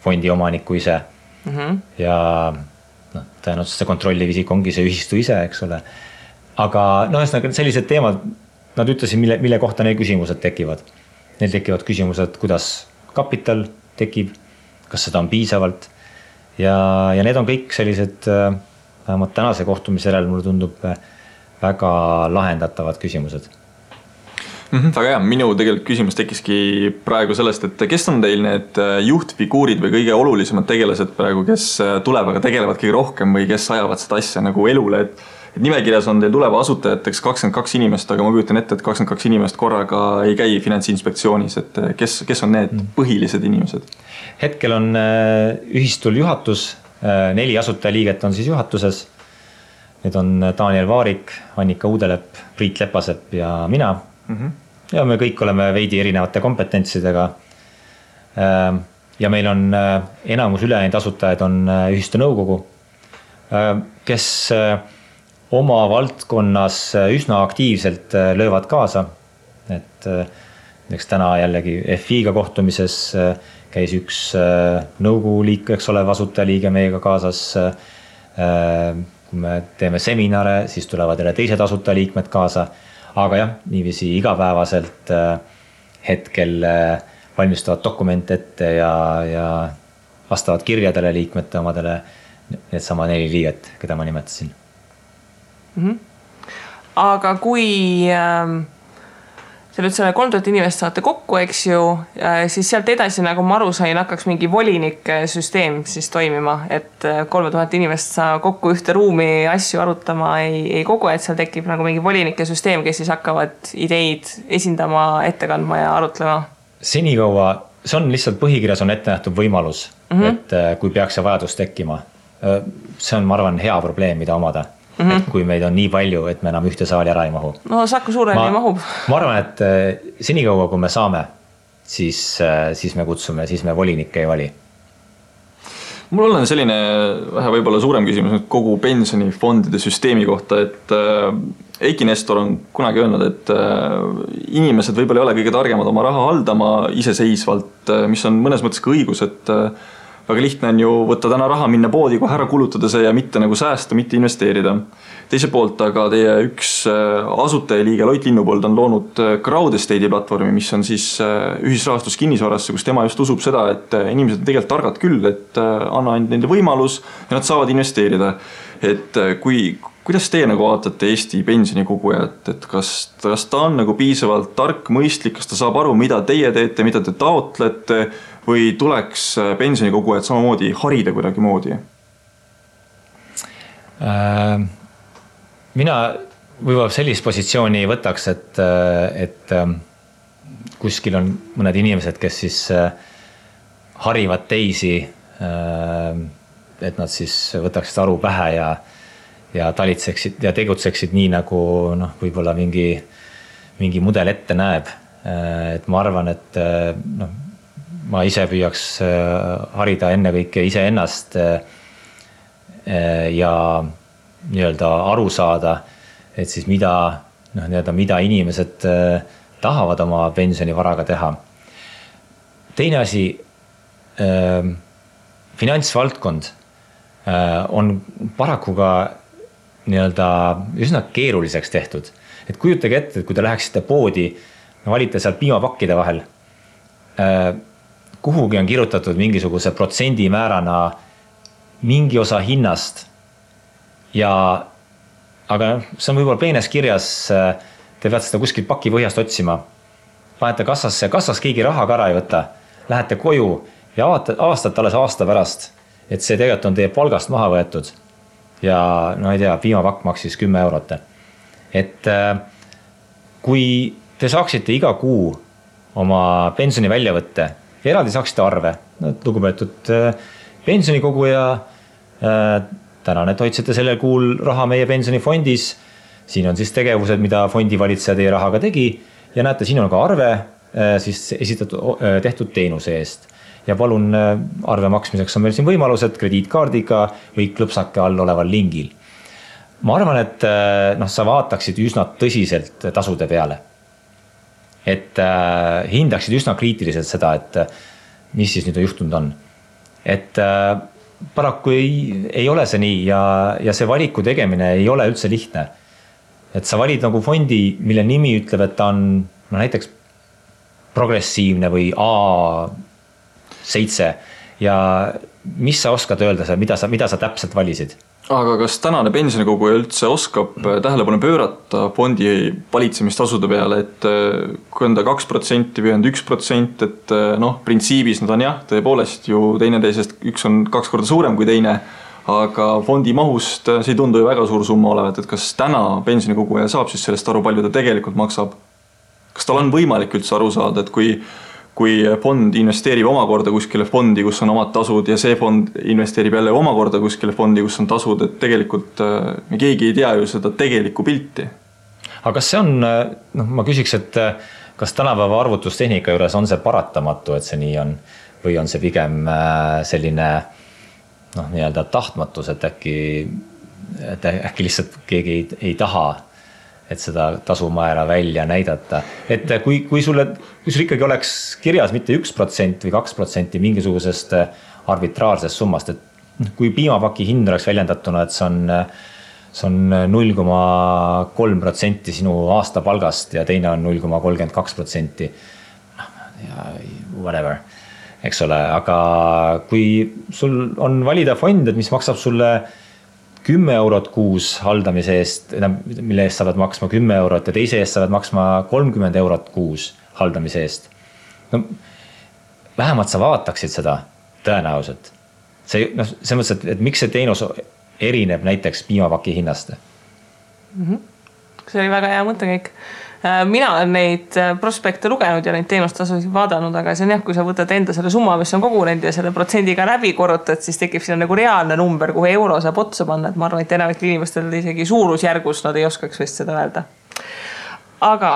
fondi omanikku ise. Ja tõenäoliselt see kontrolliv isik ongi see ühistu ise, eks ole. Aga sellised teemad, nad ütlesid, mille kohta neil küsimused tekivad. Neil tekivad küsimused, kuidas kapital tekib, kas seda on piisavalt ja need on kõik sellised vähemalt tänase kohtumise järel mulle tundub väga lahendatavad küsimused. Väga hea, minu tegelikult küsimus tekiski praegu sellest, et kes on teil need juhtfiguurid või kõige olulisemad tegelased praegu, kes tulevaga tegelevad kõige rohkem või kes ajavad seda asja nagu elule, et nimekirjas on teil tuleva asutajateks 22 inimest, aga ma kujutan ette, et 22 inimest korraga ei käi Finantsinspektsioonis, et kes on need põhilised inimesed? Hetkel on ühistul juhatus, 4 asutajaliiget on siis juhatuses. Need on Daniel Vaarik, Annika Uudelepp, Priit Lepasepp ja mina. Ja me kõik oleme veidi erinevate kompetentsidega. Ja meil on enamus ülejäänud asutajaid on ühistu nõukogu, kes oma valdkonnas üsna aktiivselt löövad kaasa. Et täna jällegi FI-ga kohtumises käis üks nõukogu liikmeks olev asutajaliige meiega kaasas. Kui me teeme seminare, siis tulevad jälle teised asutajaliikmed kaasa. Aga jah, niiviisi igapäevaselt hetkel valmistavad dokumente ette ja vastavad kirjadele liikmete omadele need sama 4 liiget, keda ma nimetasin. Aga kui te nüüd selle 3000 inimest saate kokku, eks ju, siis sealt edasi, nagu ma aru sain, hakkaks mingi volinike süsteem siis toimima, et 3000 inimest saa kokku ühte ruumi asju arutama ei kogu, et seal tekib nagu mingi volinike süsteem, kes siis hakkavad ideid esindama, ette kandma ja arutlema. Senikaua, see on lihtsalt põhikirjas on ette nähtud võimalus, et kui peaks see vajadus tekkima. See on, ma arvan, hea probleem, mida omada. Et kui meid on nii palju, et me enam ühte saali ära ei mahu. No Saku suureni mahub. Ma arvan, et senikaua, kui me saame, siis me kutsume, siis me volinikke ei vali. Mul on selline vähe võib-olla suurem küsimus kogu pensionifondide süsteemi kohta, et Eiki Nestor on kunagi öelnud, et inimesed võib-olla ei ole kõige targemad oma raha haldama iseseisvalt, mis on mõnes mõttes ka õigus, et väga lihtne on ju võtta täna raha, minna poodi, kohe ära kulutada see ja mitte nagu säästa, mitte investeerida. Teise poolt aga teie üks asutajaliige Loit Linnupold on loonud Crowd Estate'i platvormi, mis on siis ühisrahastus kinnisvarasse, kus tema just usub seda, et inimesed on tegelikult targad küll, et anna ainult nende võimalus ja nad saavad investeerida. Et kuidas teie nagu vaatate Eesti pensionikogujat, et kas ta on nagu piisavalt tark, mõistlik, kas ta saab aru, mida teie teete, mida te taotlete või tuleks pensionikogujat samamoodi harida kuidagi moodi? Mina võib-olla sellist positsiooni võtaks, et kuskil on mõned inimesed, kes siis harivad teisi, et nad siis võtaksid aru pähe ja talitseksid ja tegutseksid nii, nagu võib-olla mingi mudel ette näeb. Et ma arvan, et ma ise püüaks harida ennekõike ise ennast ja nii-öelda aru saada, et siis mida inimesed tahavad oma pensionivaraga teha. Teine asi, finantsvaldkond on paraku ka nii-öelda üsna keeruliseks tehtud. Et kujutage ette, et kui te läheksite poodi, valite seal piimapakkide vahel, kuhugi on kirjutatud mingisuguse protsendimäärana mingi osa hinnast, aga see on võib-olla peenes kirjas, te peate seda kuskilt paki põhjast otsima. Panete kassasse, kassas keegi raha ka ära ei võta, lähete koju ja avastate alles aasta pärast, et see tegelikult on teie palgast maha võetud ja ei tea, piimapakk maksis 10 eurot. Et kui te saaksite iga kuu oma pensioni välja võtte ja eraldi saaksite arve, lugupeetud pensionikoguja, tänane, et hoidsite sellel kuul raha meie pensionifondis, siin on siis tegevused, mida fondivalitseja teie rahaga tegi ja näete, siin on ka arve siis tehtud teenuse eest. Ja palun arve maksmiseks on meil siin võimalused krediitkaardiga või klõpsake all oleval lingil. Ma arvan, et sa vaataksid üsna tõsiselt tasude peale. Et hindaksid üsna kriitiliselt seda, et mis siis nüüd juhtunud on. Et paraku ei ole see nii ja see valiku tegemine ei ole üldse lihtne. Et sa valid nagu fondi, mille nimi ütleb, et ta on näiteks progressiivne või A7 ja mis sa oskad öelda, mida sa täpselt valisid? Aga kas tänane pensionikoguja üldse oskab tähelepanu pöörata fondi valitsemistasude peale, et kui on ta 2% või on 1%, et printsiibis nad on jah, tõepoolest ju teineteisest üks on 2 korda suurem kui teine, aga fondi mahust see ei tundu ju väga suur summa olevat, et kas täna pensionikoguja saab siis sellest aru, palju ta tegelikult maksab? Kas tal on võimalik üldse aru saada, et kui fond investeerib omakorda kuskile fondi, kus on omad tasud ja see fond investeerib jälle omakorda kuskile fondi, kus on tasud, et tegelikult me keegi ei tea ju seda tegelikku pilti. Aga kas see on, ma küsiks, et kas tänapäeva arvutustehnika juures on see paratamatu, et see nii on, või on see pigem selline nii-öelda tahtmatus, et äkki lihtsalt keegi ei taha, et seda tasumäära välja näidata. Et kui sul ikkagi oleks kirjas mitte 1% või 2% mingisugusest arbitraarsest summast, et kui piimapaki hind oleks väljendatuna, et see on 0,3% sinu aastapalgast ja teine on 0,32%, whatever, eks ole, aga kui sul on valida fond, et mis maksab sulle 10 eurot kuus haldamise eest, mille eest saavad maksma 10 eurot ja teise eest saavad maksma 30 eurot kuus haldamise eest. Vähemalt sa vaataksid seda tõenäoliselt. See mõttes, et miks see teenus erineb näiteks piimapaki hinnast? See oli väga hea mõttekäik. Mina olen neid prospekte lugenud ja neid teenustasusid vaadanud, aga see on jah, kui sa võtad enda selle summa, mis on kogunenud ja selle protsendiga läbi korrutad, siis tekib siin nagu reaalne number, kuhu euro saab otsa panna, et ma arvan, et enamik inimestel isegi suurusjärgus nad ei oskaks vist seda öelda. Aga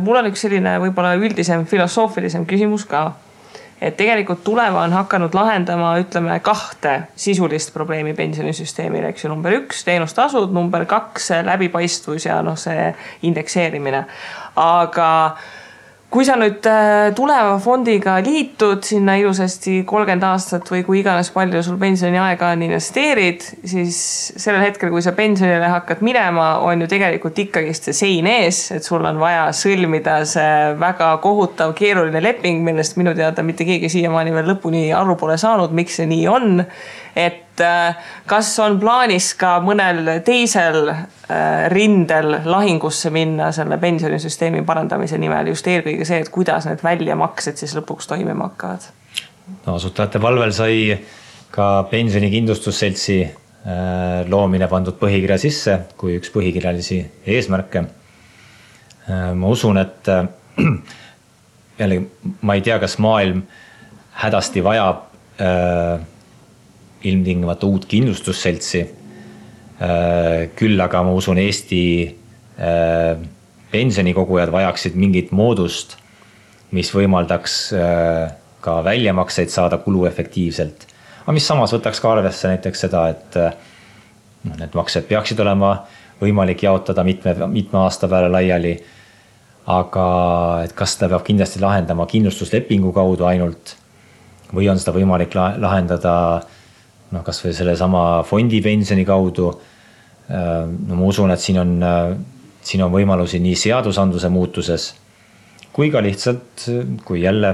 mul on üks selline võib-olla üldisem filosoofilisem küsimus ka, et tegelikult tuleva on hakanud lahendama, ütleme, 2 sisulist probleemi pensionisüsteemil, eks ju, number 1, teenustasud, number 2, läbipaistvus ja see indekseerimine. Aga kui sa nüüd tuleva fondiga liitud sinna ilusasti 30 aastat või kui iganes palju sul pensioniaega on investeerid, siis sellel hetkel, kui sa pensionile hakkad minema, on ju tegelikult ikkagist see sein ees, et sul on vaja sõlmida see väga kohutav keeruline leping, millest minu teada mitte keegi siiamaani veel lõpuni aru pole saanud, miks see nii on. Et kas on plaanis ka mõnel teisel rindel lahingusse minna selle pensionisüsteemi parandamise nimel, just eelkõige see, et kuidas need väljamaksed siis lõpuks toimima hakkavad? No, asutajate palvel sai ka pensionikindlustusseltsi loomine pandud põhikirja sisse kui üks põhikirjalisi eesmärke. Ma usun, et jällegi, ma ei tea, kas maailm hädasti vajab ilmtingimata uut kindlustusseltsi. Küll aga ma usun, Eesti pensionikogujad vajaksid mingit moodust, mis võimaldaks ka väljamakseid saada kuluefektiivselt. Aga mis samas võtaks ka arvesse näiteks seda, et need maksed peaksid olema võimalik jaotada mitme aasta peale laiali, aga et kas seda peab kindlasti lahendama kindlustuslepingu kaudu ainult või on seda võimalik lahendada kas või selle sama fondi pensioni kaudu. No ma usun, et siin on võimalusi nii seadusandluse muutuses kui ka lihtsalt, kui jälle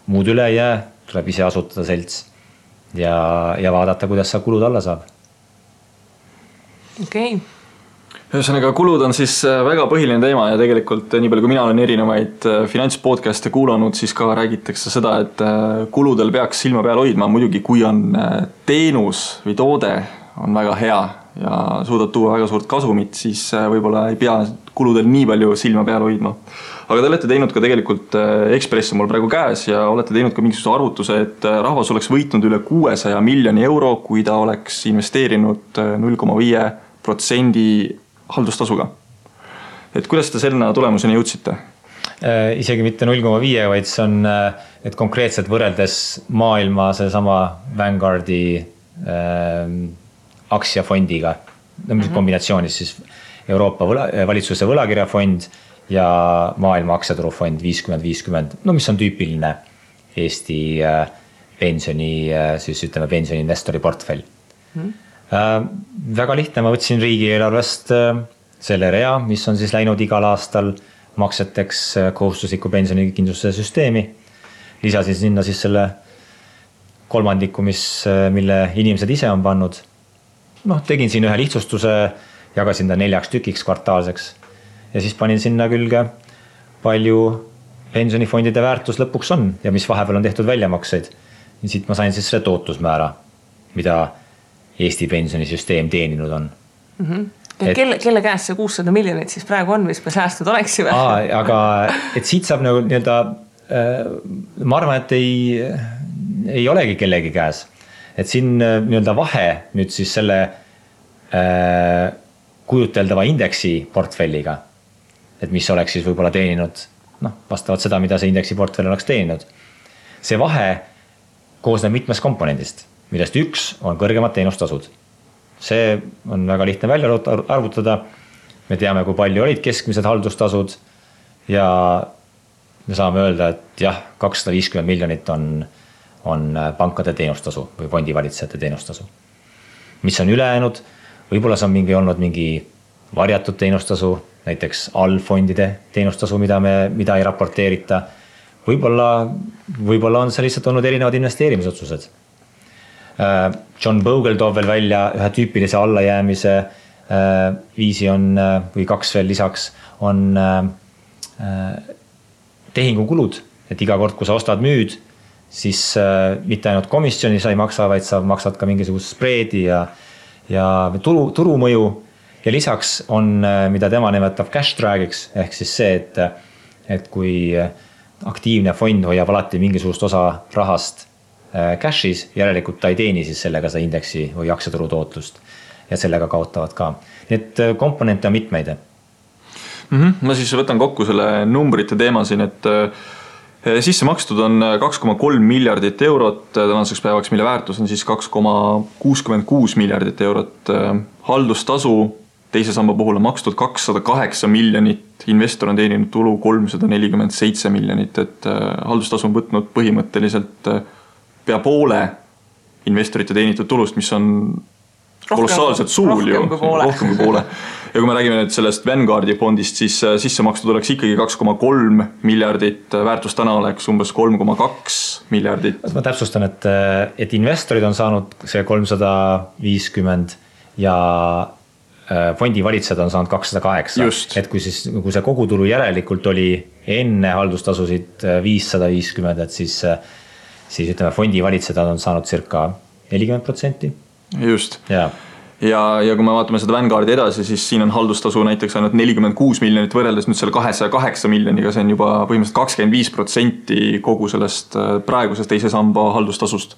muud üle ei jää, tuleb ise asutada selts ja vaadata, kuidas sa kulud alla saab. Okei. Ühesõnaga, kulud on siis väga põhiline teema ja tegelikult nii palju, kui mina olen erinevaid finantspodcaste kuulanud, siis ka räägitakse seda, et kuludel peaks silma peal hoidma. Muidugi, kui on teenus või toode on väga hea ja suudad tuua väga suurt kasumit, siis võib-olla ei pea kuludel nii palju silma peal hoidma. Aga te olete teinud ka tegelikult Ekspress on mul praegu käes ja olete teinud ka mingisuguse arvutuse, et rahvas oleks võitnud üle 600 miljoni euro, kui ta oleks investeerinud 0,5% haldustasuga. Et kuidas te selle tulemuseni jõudsite? Isegi mitte 0,5, vaid see on, et konkreetselt võrreldes maailma see sama Vanguardi aktsiafondiga, kombinatsioonis siis Euroopa valitsuse võlakirjafond ja maailma aktsiaturufond 50-50, mis on tüüpiline Eesti pensioni, siis ütleme pensioniinvestori portfell. Väga lihtne, ma võtsin riigieelarvest selle rea, mis on siis läinud igal aastal makseteks kohustusliku pensionikindlustuse süsteemi. Lisasin sinna siis selle kolmandiku, mille inimesed ise on pannud. Tegin siin ühe lihtsustuse, jagasin ta 4 tükiks kvartaalseks ja siis panin sinna külge palju pensionifondide väärtus lõpuks on ja mis vahepeal on tehtud väljamakseid. Ja siit ma sain siis selle tootlusmäära, mida Eesti pensionisüsteem teeninud on. Ja kelle käes see 600 miljonit siis praegu on, mis me säästud oleksime? Aga et siit saab nii-öelda, ma arvan, et ei olegi kellegi käes. Et siin nii-öelda vahe nüüd siis selle kujuteldava indeksi portfelliga, et mis oleks siis võib-olla teeninud, vastavalt seda, mida see indeksi portfell oleks teeninud. See vahe koosneb mitmest komponendist, millest üks on kõrgemad teenustasud. See on väga lihtne välja arvutada. Me teame, kui palju olid keskmised haldustasud ja me saame öelda, et jah, 250 miljonit on pankade teenustasu või fondivalitsejate teenustasu. Mis on ülejäänud? Võib-olla see on olnud mingi varjatud teenustasu, näiteks allfondide teenustasu, mida ei raporteerita. Võib-olla on see lihtsalt olnud erinevad investeerimisotsused. John Bogle toob veel välja ühe tüüpilise allajäämise viisi on, või 2 veel lisaks, on tehingukulud, et iga kord, kui sa ostad müüd, siis mitte ainult komisjoni sa ei maksa, vaid sa maksad ka mingisugust spreedi ja turumõju. Ja lisaks on, mida tema nimetab cash drag'iks, ehk siis see, et kui aktiivne fond hoiab alati mingisugust osa rahast cash'is, järelikult ta ei teeni siis sellega seda indeksi või aktsiaturu tootlust ja sellega kaotavad ka. Need komponente on mitmeid. Ma siis võtan kokku selle numbrite teema siin, et sisse makstud on 2,3 miljardit eurot tänaseks päevaks, mille väärtus on siis 2,66 miljardit eurot. Haldustasu teise samba puhul on makstud 208 miljonit investor on teeninud tulu 347 miljonit, et haldustasu on võtnud põhimõtteliselt pea poole investorite teenitud tulust, mis on kolossaalselt suur ju, rohkem kui poole. Ja kui me räägime nüüd sellest Vanguardi fondist, siis sisse makstud oleks ikkagi 2,3 miljardit, väärtus täna oleks umbes 3,2 miljardit. Ma täpsustan, et investorid on saanud see 350 ja fondivalitsused on saanud 208. Just. Et kui see kogutulu järelikult oli enne haldustasusid 550, et siis ütleme, fondivalitsused on saanud circa 40%. Just. Ja kui me vaatame seda Vanguardi edasi, siis siin on haldustasu näiteks ainult 46 miljonit võrreldes nüüd selle 208 miljoniga, see on juba põhimõtteliselt 25% kogu sellest praegusest teise samba haldustasust.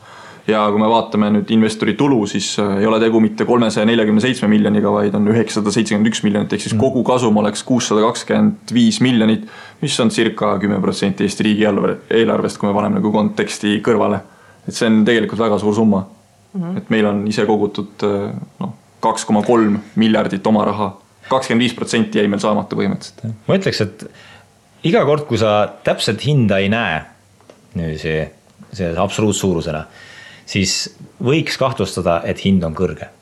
Ja kui me vaatame nüüd investori tulu, siis ei ole tegu mitte 347 miljoniga, vaid on 971 miljonit, ehk siis kogu kasum oleks 625 miljonit, mis on circa 10% Eesti riigi eelarvest, kui me paneme nagu konteksti kõrvale. Et see on tegelikult väga suur summa. Et meil on ise kogutud 2,3 miljardit oma raha. 25% jäi meil saamata põhimõtteliselt. Ma ütleks, et iga kord, kui sa täpselt hinda ei näe see absoluutsuurusena, siis võiks kahtlustada, et hind on kõrge.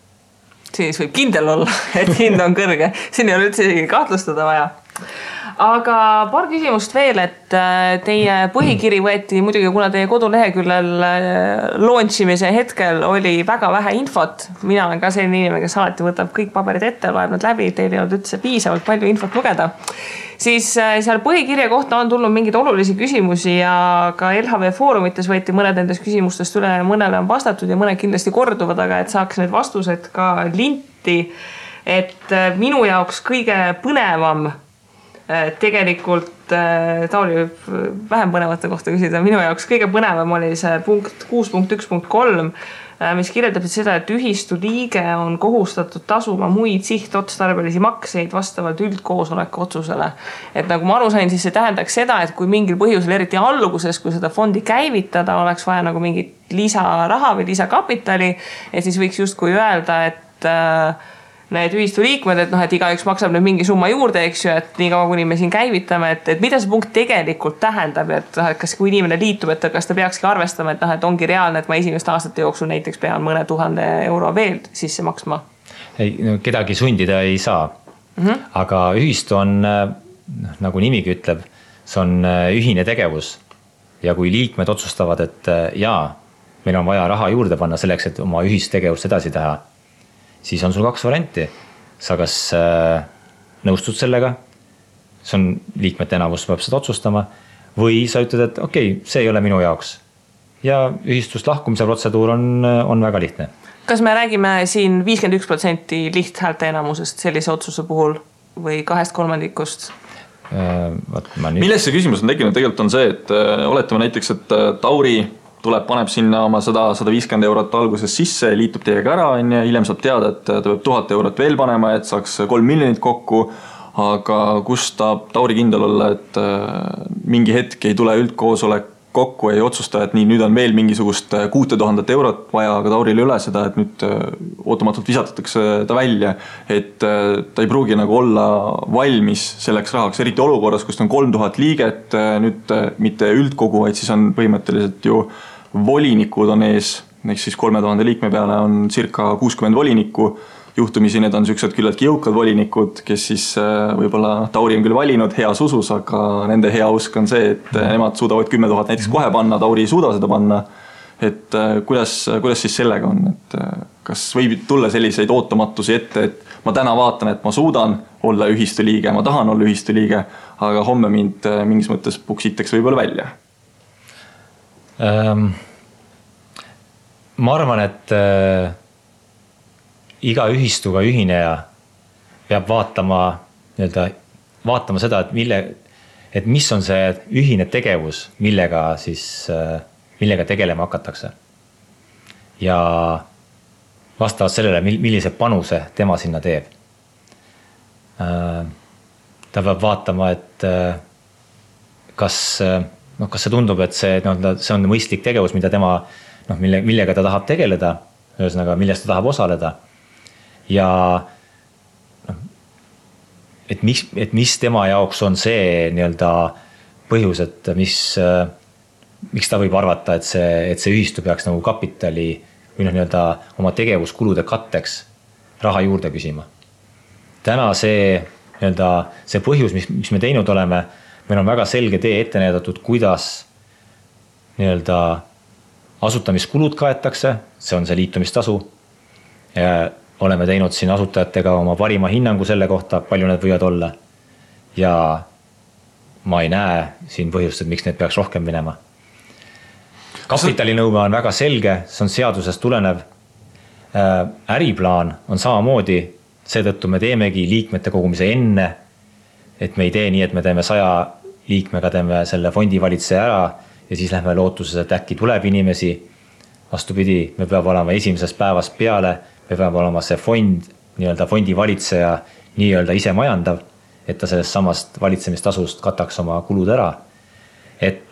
Siis võib kindel olla, et hind on kõrge. Siin ei ole üldse kahtlustada vaja. Aga paar küsimust veel, et teie põhikiri võeti muidugi, kuna teie koduleheküljel launchimise hetkel oli väga vähe infot. Mina olen ka selline inimene, kes alati võtab kõik paberid ette, loeb nad läbi, teil ei olnud üldse piisavalt palju infot lugeda. Siis seal põhikirja kohta on tulnud mingeid olulisi küsimusi ja ka LHV foorumites võeti mõned nendest küsimustest üle, mõnele on vastatud ja mõned kindlasti korduvad, aga et saaks need vastused ka linti, et minu jaoks kõige põnevam tegelikult Tauli vähem põnevate kohta küsida. Minu jaoks kõige põnevam oli see punkt 6.1.3, mis kirjeldab seda, et ühistu liige on kohustatud tasuma muid sihtotstarbelisi makseid vastavalt üldkoosoleku otsusele. Et nagu ma aru sain, siis see tähendaks seda, et kui mingil põhjusel, eriti alguses, kui seda fondi käivitada, oleks vaja nagu mingit lisaraha või lisakapitali, et siis võiks justkui öelda, et need ühistu liikmed, et igaüks maksab nüüd mingi summa juurde, eks ju, et nii kaua, kuni me siin käivitame, et mida see punkt tegelikult tähendab, et kas kui inimene liitub, et kas ta peakski arvestama, et ongi reaalne, et ma esimeste aastate jooksul näiteks pean mõne 1000 euro veel sisse maksma? Ei, kedagi sundida ei saa. Aga ühistu on, nagu nimigi ütleb, see on ühine tegevus. Ja kui liikmed otsustavad, et meil on vaja raha juurde panna selleks, et oma ühistegevust edasi teha, siis on sul 2 varianti. Sa kas nõustud sellega, see on liikmete enamus peab seda otsustama, või sa ütled, et okei, see ei ole minu jaoks. Ja ühistust lahkumise protseduur on väga lihtne. Kas me räägime siin 51% lihthäälte enamusest sellise otsuse puhul või 2/3? Milles see küsimus on tekkinud? Tegelikult on see, et oletame näiteks, et Tauri paneb sinna oma 150 eurot alguses sisse, liitub teiega ära, hiljem saab teada, et ta peab 1000 eurot veel panema, et saaks 3 miljonit kokku, aga kus tahab Tauri kindel olla, et mingi hetk ei tule üldkoosolek kokku, ei otsusta, et nüüd on veel mingisugust 6000 eurot vaja, aga Tauril üle seda, et nüüd ootamatult visatatakse ta välja, et ta ei pruugi nagu olla valmis selleks rahaks, eriti olukorras, kus on 3000 liiget, nüüd mitte üldkogu, vaid siis on põhimõtteliselt ju volinikud on ees, ehk siis 3000 liikme peale on circa 60 volinikku. Juhtumisi need on sellised küllaltki jõukad volinikud, kes siis võib-olla Tauri on küll valinud heas usus, aga nende hea usk on see, et nemad suudavad 10 000 näiteks kohe panna, Tauri ei suuda seda panna. Et kuidas siis sellega on? Et kas võib tulla selliseid ootamatusi ette, et ma täna vaatan, et ma suudan olla ühistu liige, ma tahan olla ühistu liige, aga homme mind mingis mõttes puksitakse võib-olla välja? Ma arvan, et iga ühistuga ühineja peab vaatama seda, et mis on see ühine tegevus, millega tegelema hakatakse. Ja vastavalt sellele, millise panuse tema sinna teeb. Ta peab vaatama, et kas see tundub, et see on mõistlik tegevus, mida tema millega ta tahab tegeleda, ühesõnaga, millest ta tahab osaleda. Ja et mis tema jaoks on see nii-öelda põhjus, et miks ta võib arvata, et see ühistu peaks nagu kapitali või nii-öelda oma tegevuskulude katteks raha juurde küsima. Täna see põhjus, mis me teinud oleme, meil on väga selge tee ette näidatud, kuidas nii-öelda asutamiskulud kaetakse, see on see liitumistasu. Oleme teinud siin asutajatega oma parima hinnangu selle kohta, palju need võivad olla. Ja ma ei näe siin põhjust, et miks need peaks rohkem minema. Kapitalinõue on väga selge, see on seadusest tulenev. Äriplaan on samamoodi, seetõttu me teemegi liikmete kogumise enne, et me ei tee nii, et me teeme 100 liikmega, teeme selle fondivalitseja ära ja siis lähme lootuses, et äkki tuleb inimesi. Vastupidi, me peab olema esimesest päevast peale, me peab olema see fond, nii-öelda fondivalitseja nii-öelda ise majandav, et ta sellest samast valitsemistasust kataks oma kulud ära. Et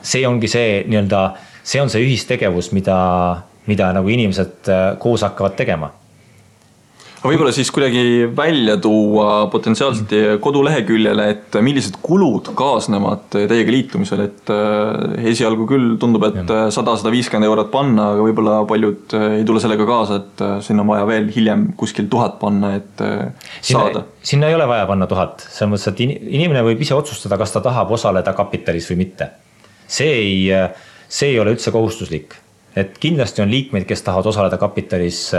see ongi see nii-öelda, see on see ühistegevus, mida nagu inimesed koos hakkavad tegema. Aga võib-olla siis kuidagi välja tuua potentsiaalselt koduleheküljele, et millised kulud kaasnevad teiega liitumisel, et esialgu küll tundub, et 100-150 eurot panna, aga võib-olla paljud ei tule sellega kaasa, et sinna on vaja veel hiljem kuskil 1000 panna, et saada. Sinna ei ole vaja panna 1000, selles mõttes, et inimene võib ise otsustada, kas ta tahab osaleda kapitalis või mitte. See ei ole üldse kohustuslik, et kindlasti on liikmeid, kes tahavad osaleda kapitalis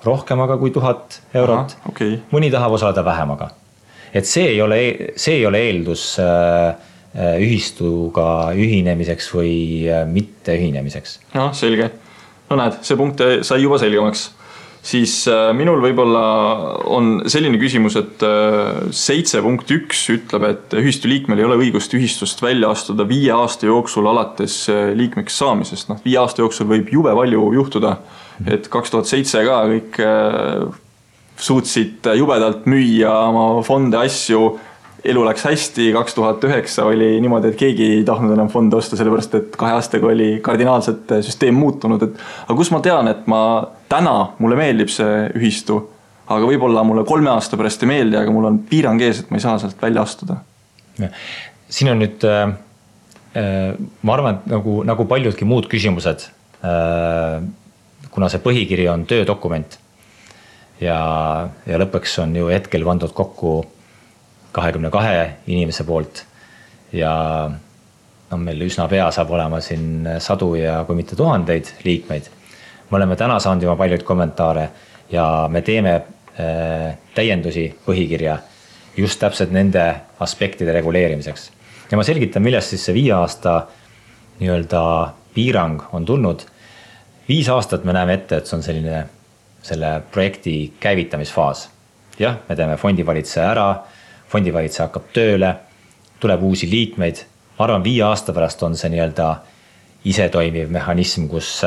rohkemaga kui 1000 eurot. Aha, okay. Mõni tahab osaleda vähemaga. Et see ei ole eeldus ühistuga ühinemiseks või mitte ühinemiseks. No, selge. No näed, see punkt sai juba selgemaks. Siis minul võib-olla on selline küsimus, et 7.1 ütleb, et ühistu liikmel ei ole õigust ühistust välja astuda 5 aasta jooksul alates liikmeks saamisest. 5 aasta jooksul võib jube palju juhtuda, et 2007 ka kõik suutsid jubedalt müüa oma fonde asju, elu läks hästi, 2009 oli niimoodi, et keegi ei tahtnud enam fonde osta, sellepärast et 2 aastaga oli kardinaalselt süsteem muutunud. Aga kus ma tean, et mulle meeldib see ühistu, aga võib-olla mulle 3 aasta pärast ei meeldi, aga mul on piirang ees, et ma ei saa sealt välja astuda. Siin on nüüd, ma arvan, et nagu paljudki muud küsimused, kuna see põhikiri on töödokument ja lõpuks on ju hetkel pandud kokku 22 inimese poolt ja meil üsna pea saab olema siin 100 ja kui mitte 1000 liikmeid. Me oleme täna saanud juba paljud kommentaare ja me teeme täiendusi põhikirja just täpselt nende aspektide reguleerimiseks. Ja ma selgitan, millest siis see 5 aasta nii-öelda piirang on tulnud. 5 aastat me näeme ette, et see on selle projekti käivitamisfaas. Jah, me teeme fondivalitseja ära, fondivalitseja hakkab tööle, tuleb uusi liikmeid. Ma arvan, 5 aasta pärast on see nii-öelda ise toimiv mehhanism, kus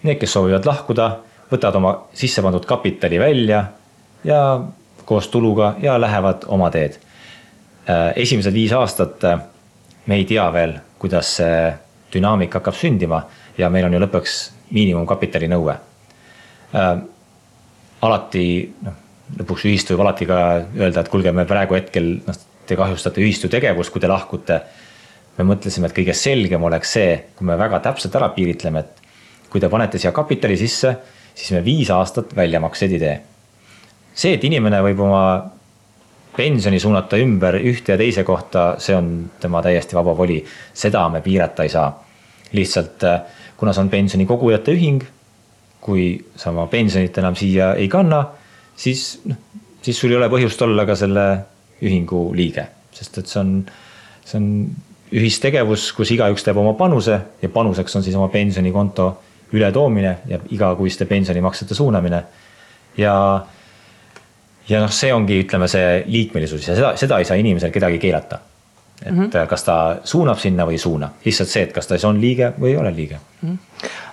need, kes soovivad lahkuda, võtavad oma sisse pandud kapitali välja ja koos tuluga ja lähevad oma teed. Esimesed 5 aastat me ei tea veel, kuidas see dünaamika hakkab sündima ja meil on ju lõpuks miinimumkapitali nõue. Alati, lõpuks ühistu võib alati ka öelda, et kuulge, me praegu hetkel te kahjustate ühistu tegevust, kui te lahkute. Me mõtlesime, et kõige selgem oleks see, kui me väga täpselt ära piiritleme, et kui te panete siia kapitali sisse, siis me 5 aastat väljamaksed ei tee. See, et inimene võib oma pensioni suunata ümber ühte ja teise kohta, see on tema täiesti vaba voli. Seda me piirata ei saa. Lihtsalt, kuna see on pensioni kogujate ühing, kui sa oma pensionit enam siia ei kanna, siis sul ei ole põhjust olla ka selle ühingu liige. Sest et see on ühistegevus, kus igaüks teeb oma panuse ja panuseks on siis oma pensionikonto ületoomine ja igakuiste pensionimaksete suunamine. Ja see ongi, ütleme, see liikmelisus ja seda ei saa inimesel kedagi keelata. et kas ta suunab sinna või ei suuna. Lihtsalt see, et kas ta on liige või ei ole liige.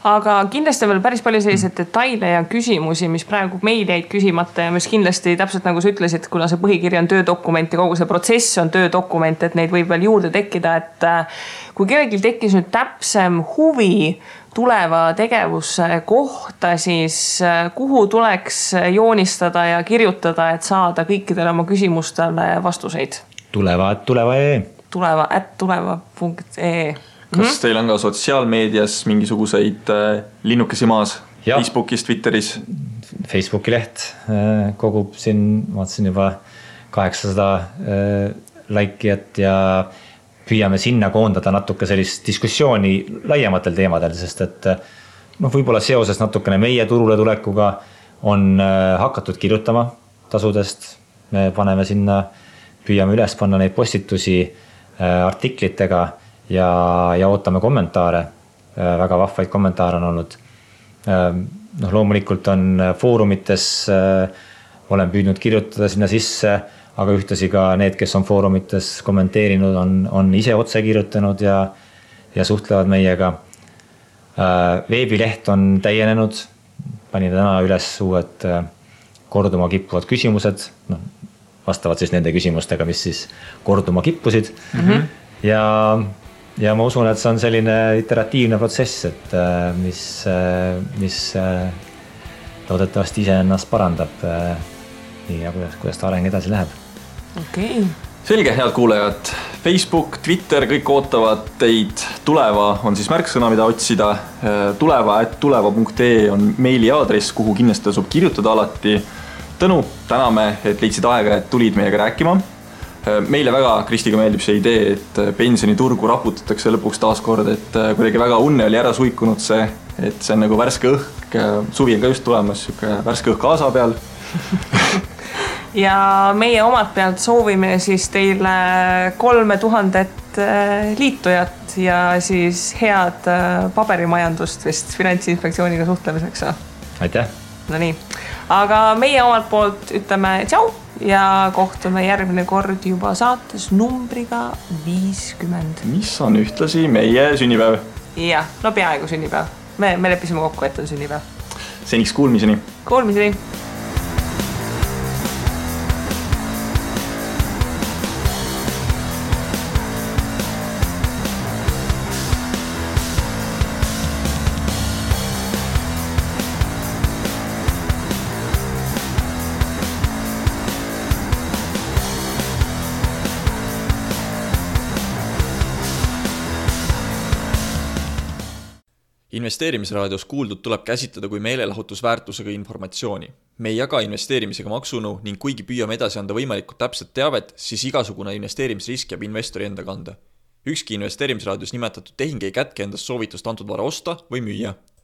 Aga kindlasti on veel päris palju selliseid detaile ja küsimusi, mis praegu meil jäid küsimata ja mis kindlasti täpselt nagu sa ütlesid, kuna see põhikiri on töödokument ja kogu see protsess on töödokument, et neid võib veel juurde tekkida, et kui kellelgi tekkis nüüd täpsem huvi tuleva tegevuse kohta, siis kuhu tuleks joonistada ja kirjutada, et saada kõikidele oma küsimustele vastuseid? tuleva.ee tuleva.ee Kas teil on ka sotsiaalmeedias mingisuguseid linnukesi maas? Ja. Facebookis, Twitteris? Facebooki leht kogub siin, vaatasin juba 800 laikijat ja püüame sinna koondada natuke sellist diskussiooni laiematel teemadel, sest et võib-olla seoses natukene meie turule tulekuga on hakatud kirjutama tasudest. Me paneme sinna, püüame üles panna neid postitusi artiklitega ja ootame kommentaare. Väga vahvaid kommentaare on olnud. Loomulikult on foorumites, olen püüdnud kirjutada sinna sisse, aga ühtasi ka need, kes on foorumites kommenteerinud, on ise otse kirjutanud ja suhtlevad meiega. Veebileht on täienenud, panin täna üles uued korduma kippuvad küsimused, vastavad siis nende küsimustega, mis siis korduma kippusid. Ja ma usun, et see on selline iteratiivne protsess, et mis loodetavasti ise ennast parandab nii ja kuidas ta areng edasi läheb. Okay. Selge, head kuulajad. Facebook, Twitter, kõik ootavad teid. Tuleva on siis märksõna, mida otsida. tuleva.ee on meili aadress, kuhu kindlasti tasub kirjutada alati. Tõnu, täname, et leidsid aega, et tulid meiega rääkima. Meile väga Kristiga meeldib see idee, et pensioniturgu raputatakse lõpuks taaskord, et kuidagi väga unne oli ära suikunud see, et see on nagu värske õhk, suvi on ka just tulemas, värske õhk Aasa peal. Ja meie omalt pealt soovime siis teile 3000 liitujat ja siis head paberimajandust vist Finantsinspektsiooniga suhtlemiseks. Aitäh! No nii, aga meie omalt poolt ütleme tšau ja kohtume järgmine kord juba saates numbriga 50. Mis on ühtlasi meie sünnipäev. Ja, no peaaegu sünnipäev. Me leppisime kokku, et on sünnipäev. Seniks kuulmiseni. Kuulmiseni. Investeerimisraadios kuuldud tuleb käsitleda kui meelelahutusväärtusega informatsiooni. Me ei jaga investeerimisega maksunu ning kuigi püüame edasi anda võimalikult täpset teavet, siis igasugune investeerimisrisk jääb investori enda kanda. Ükski investeerimisraadios nimetatud tehing ei kätke endast soovitust antud vara osta või müüa.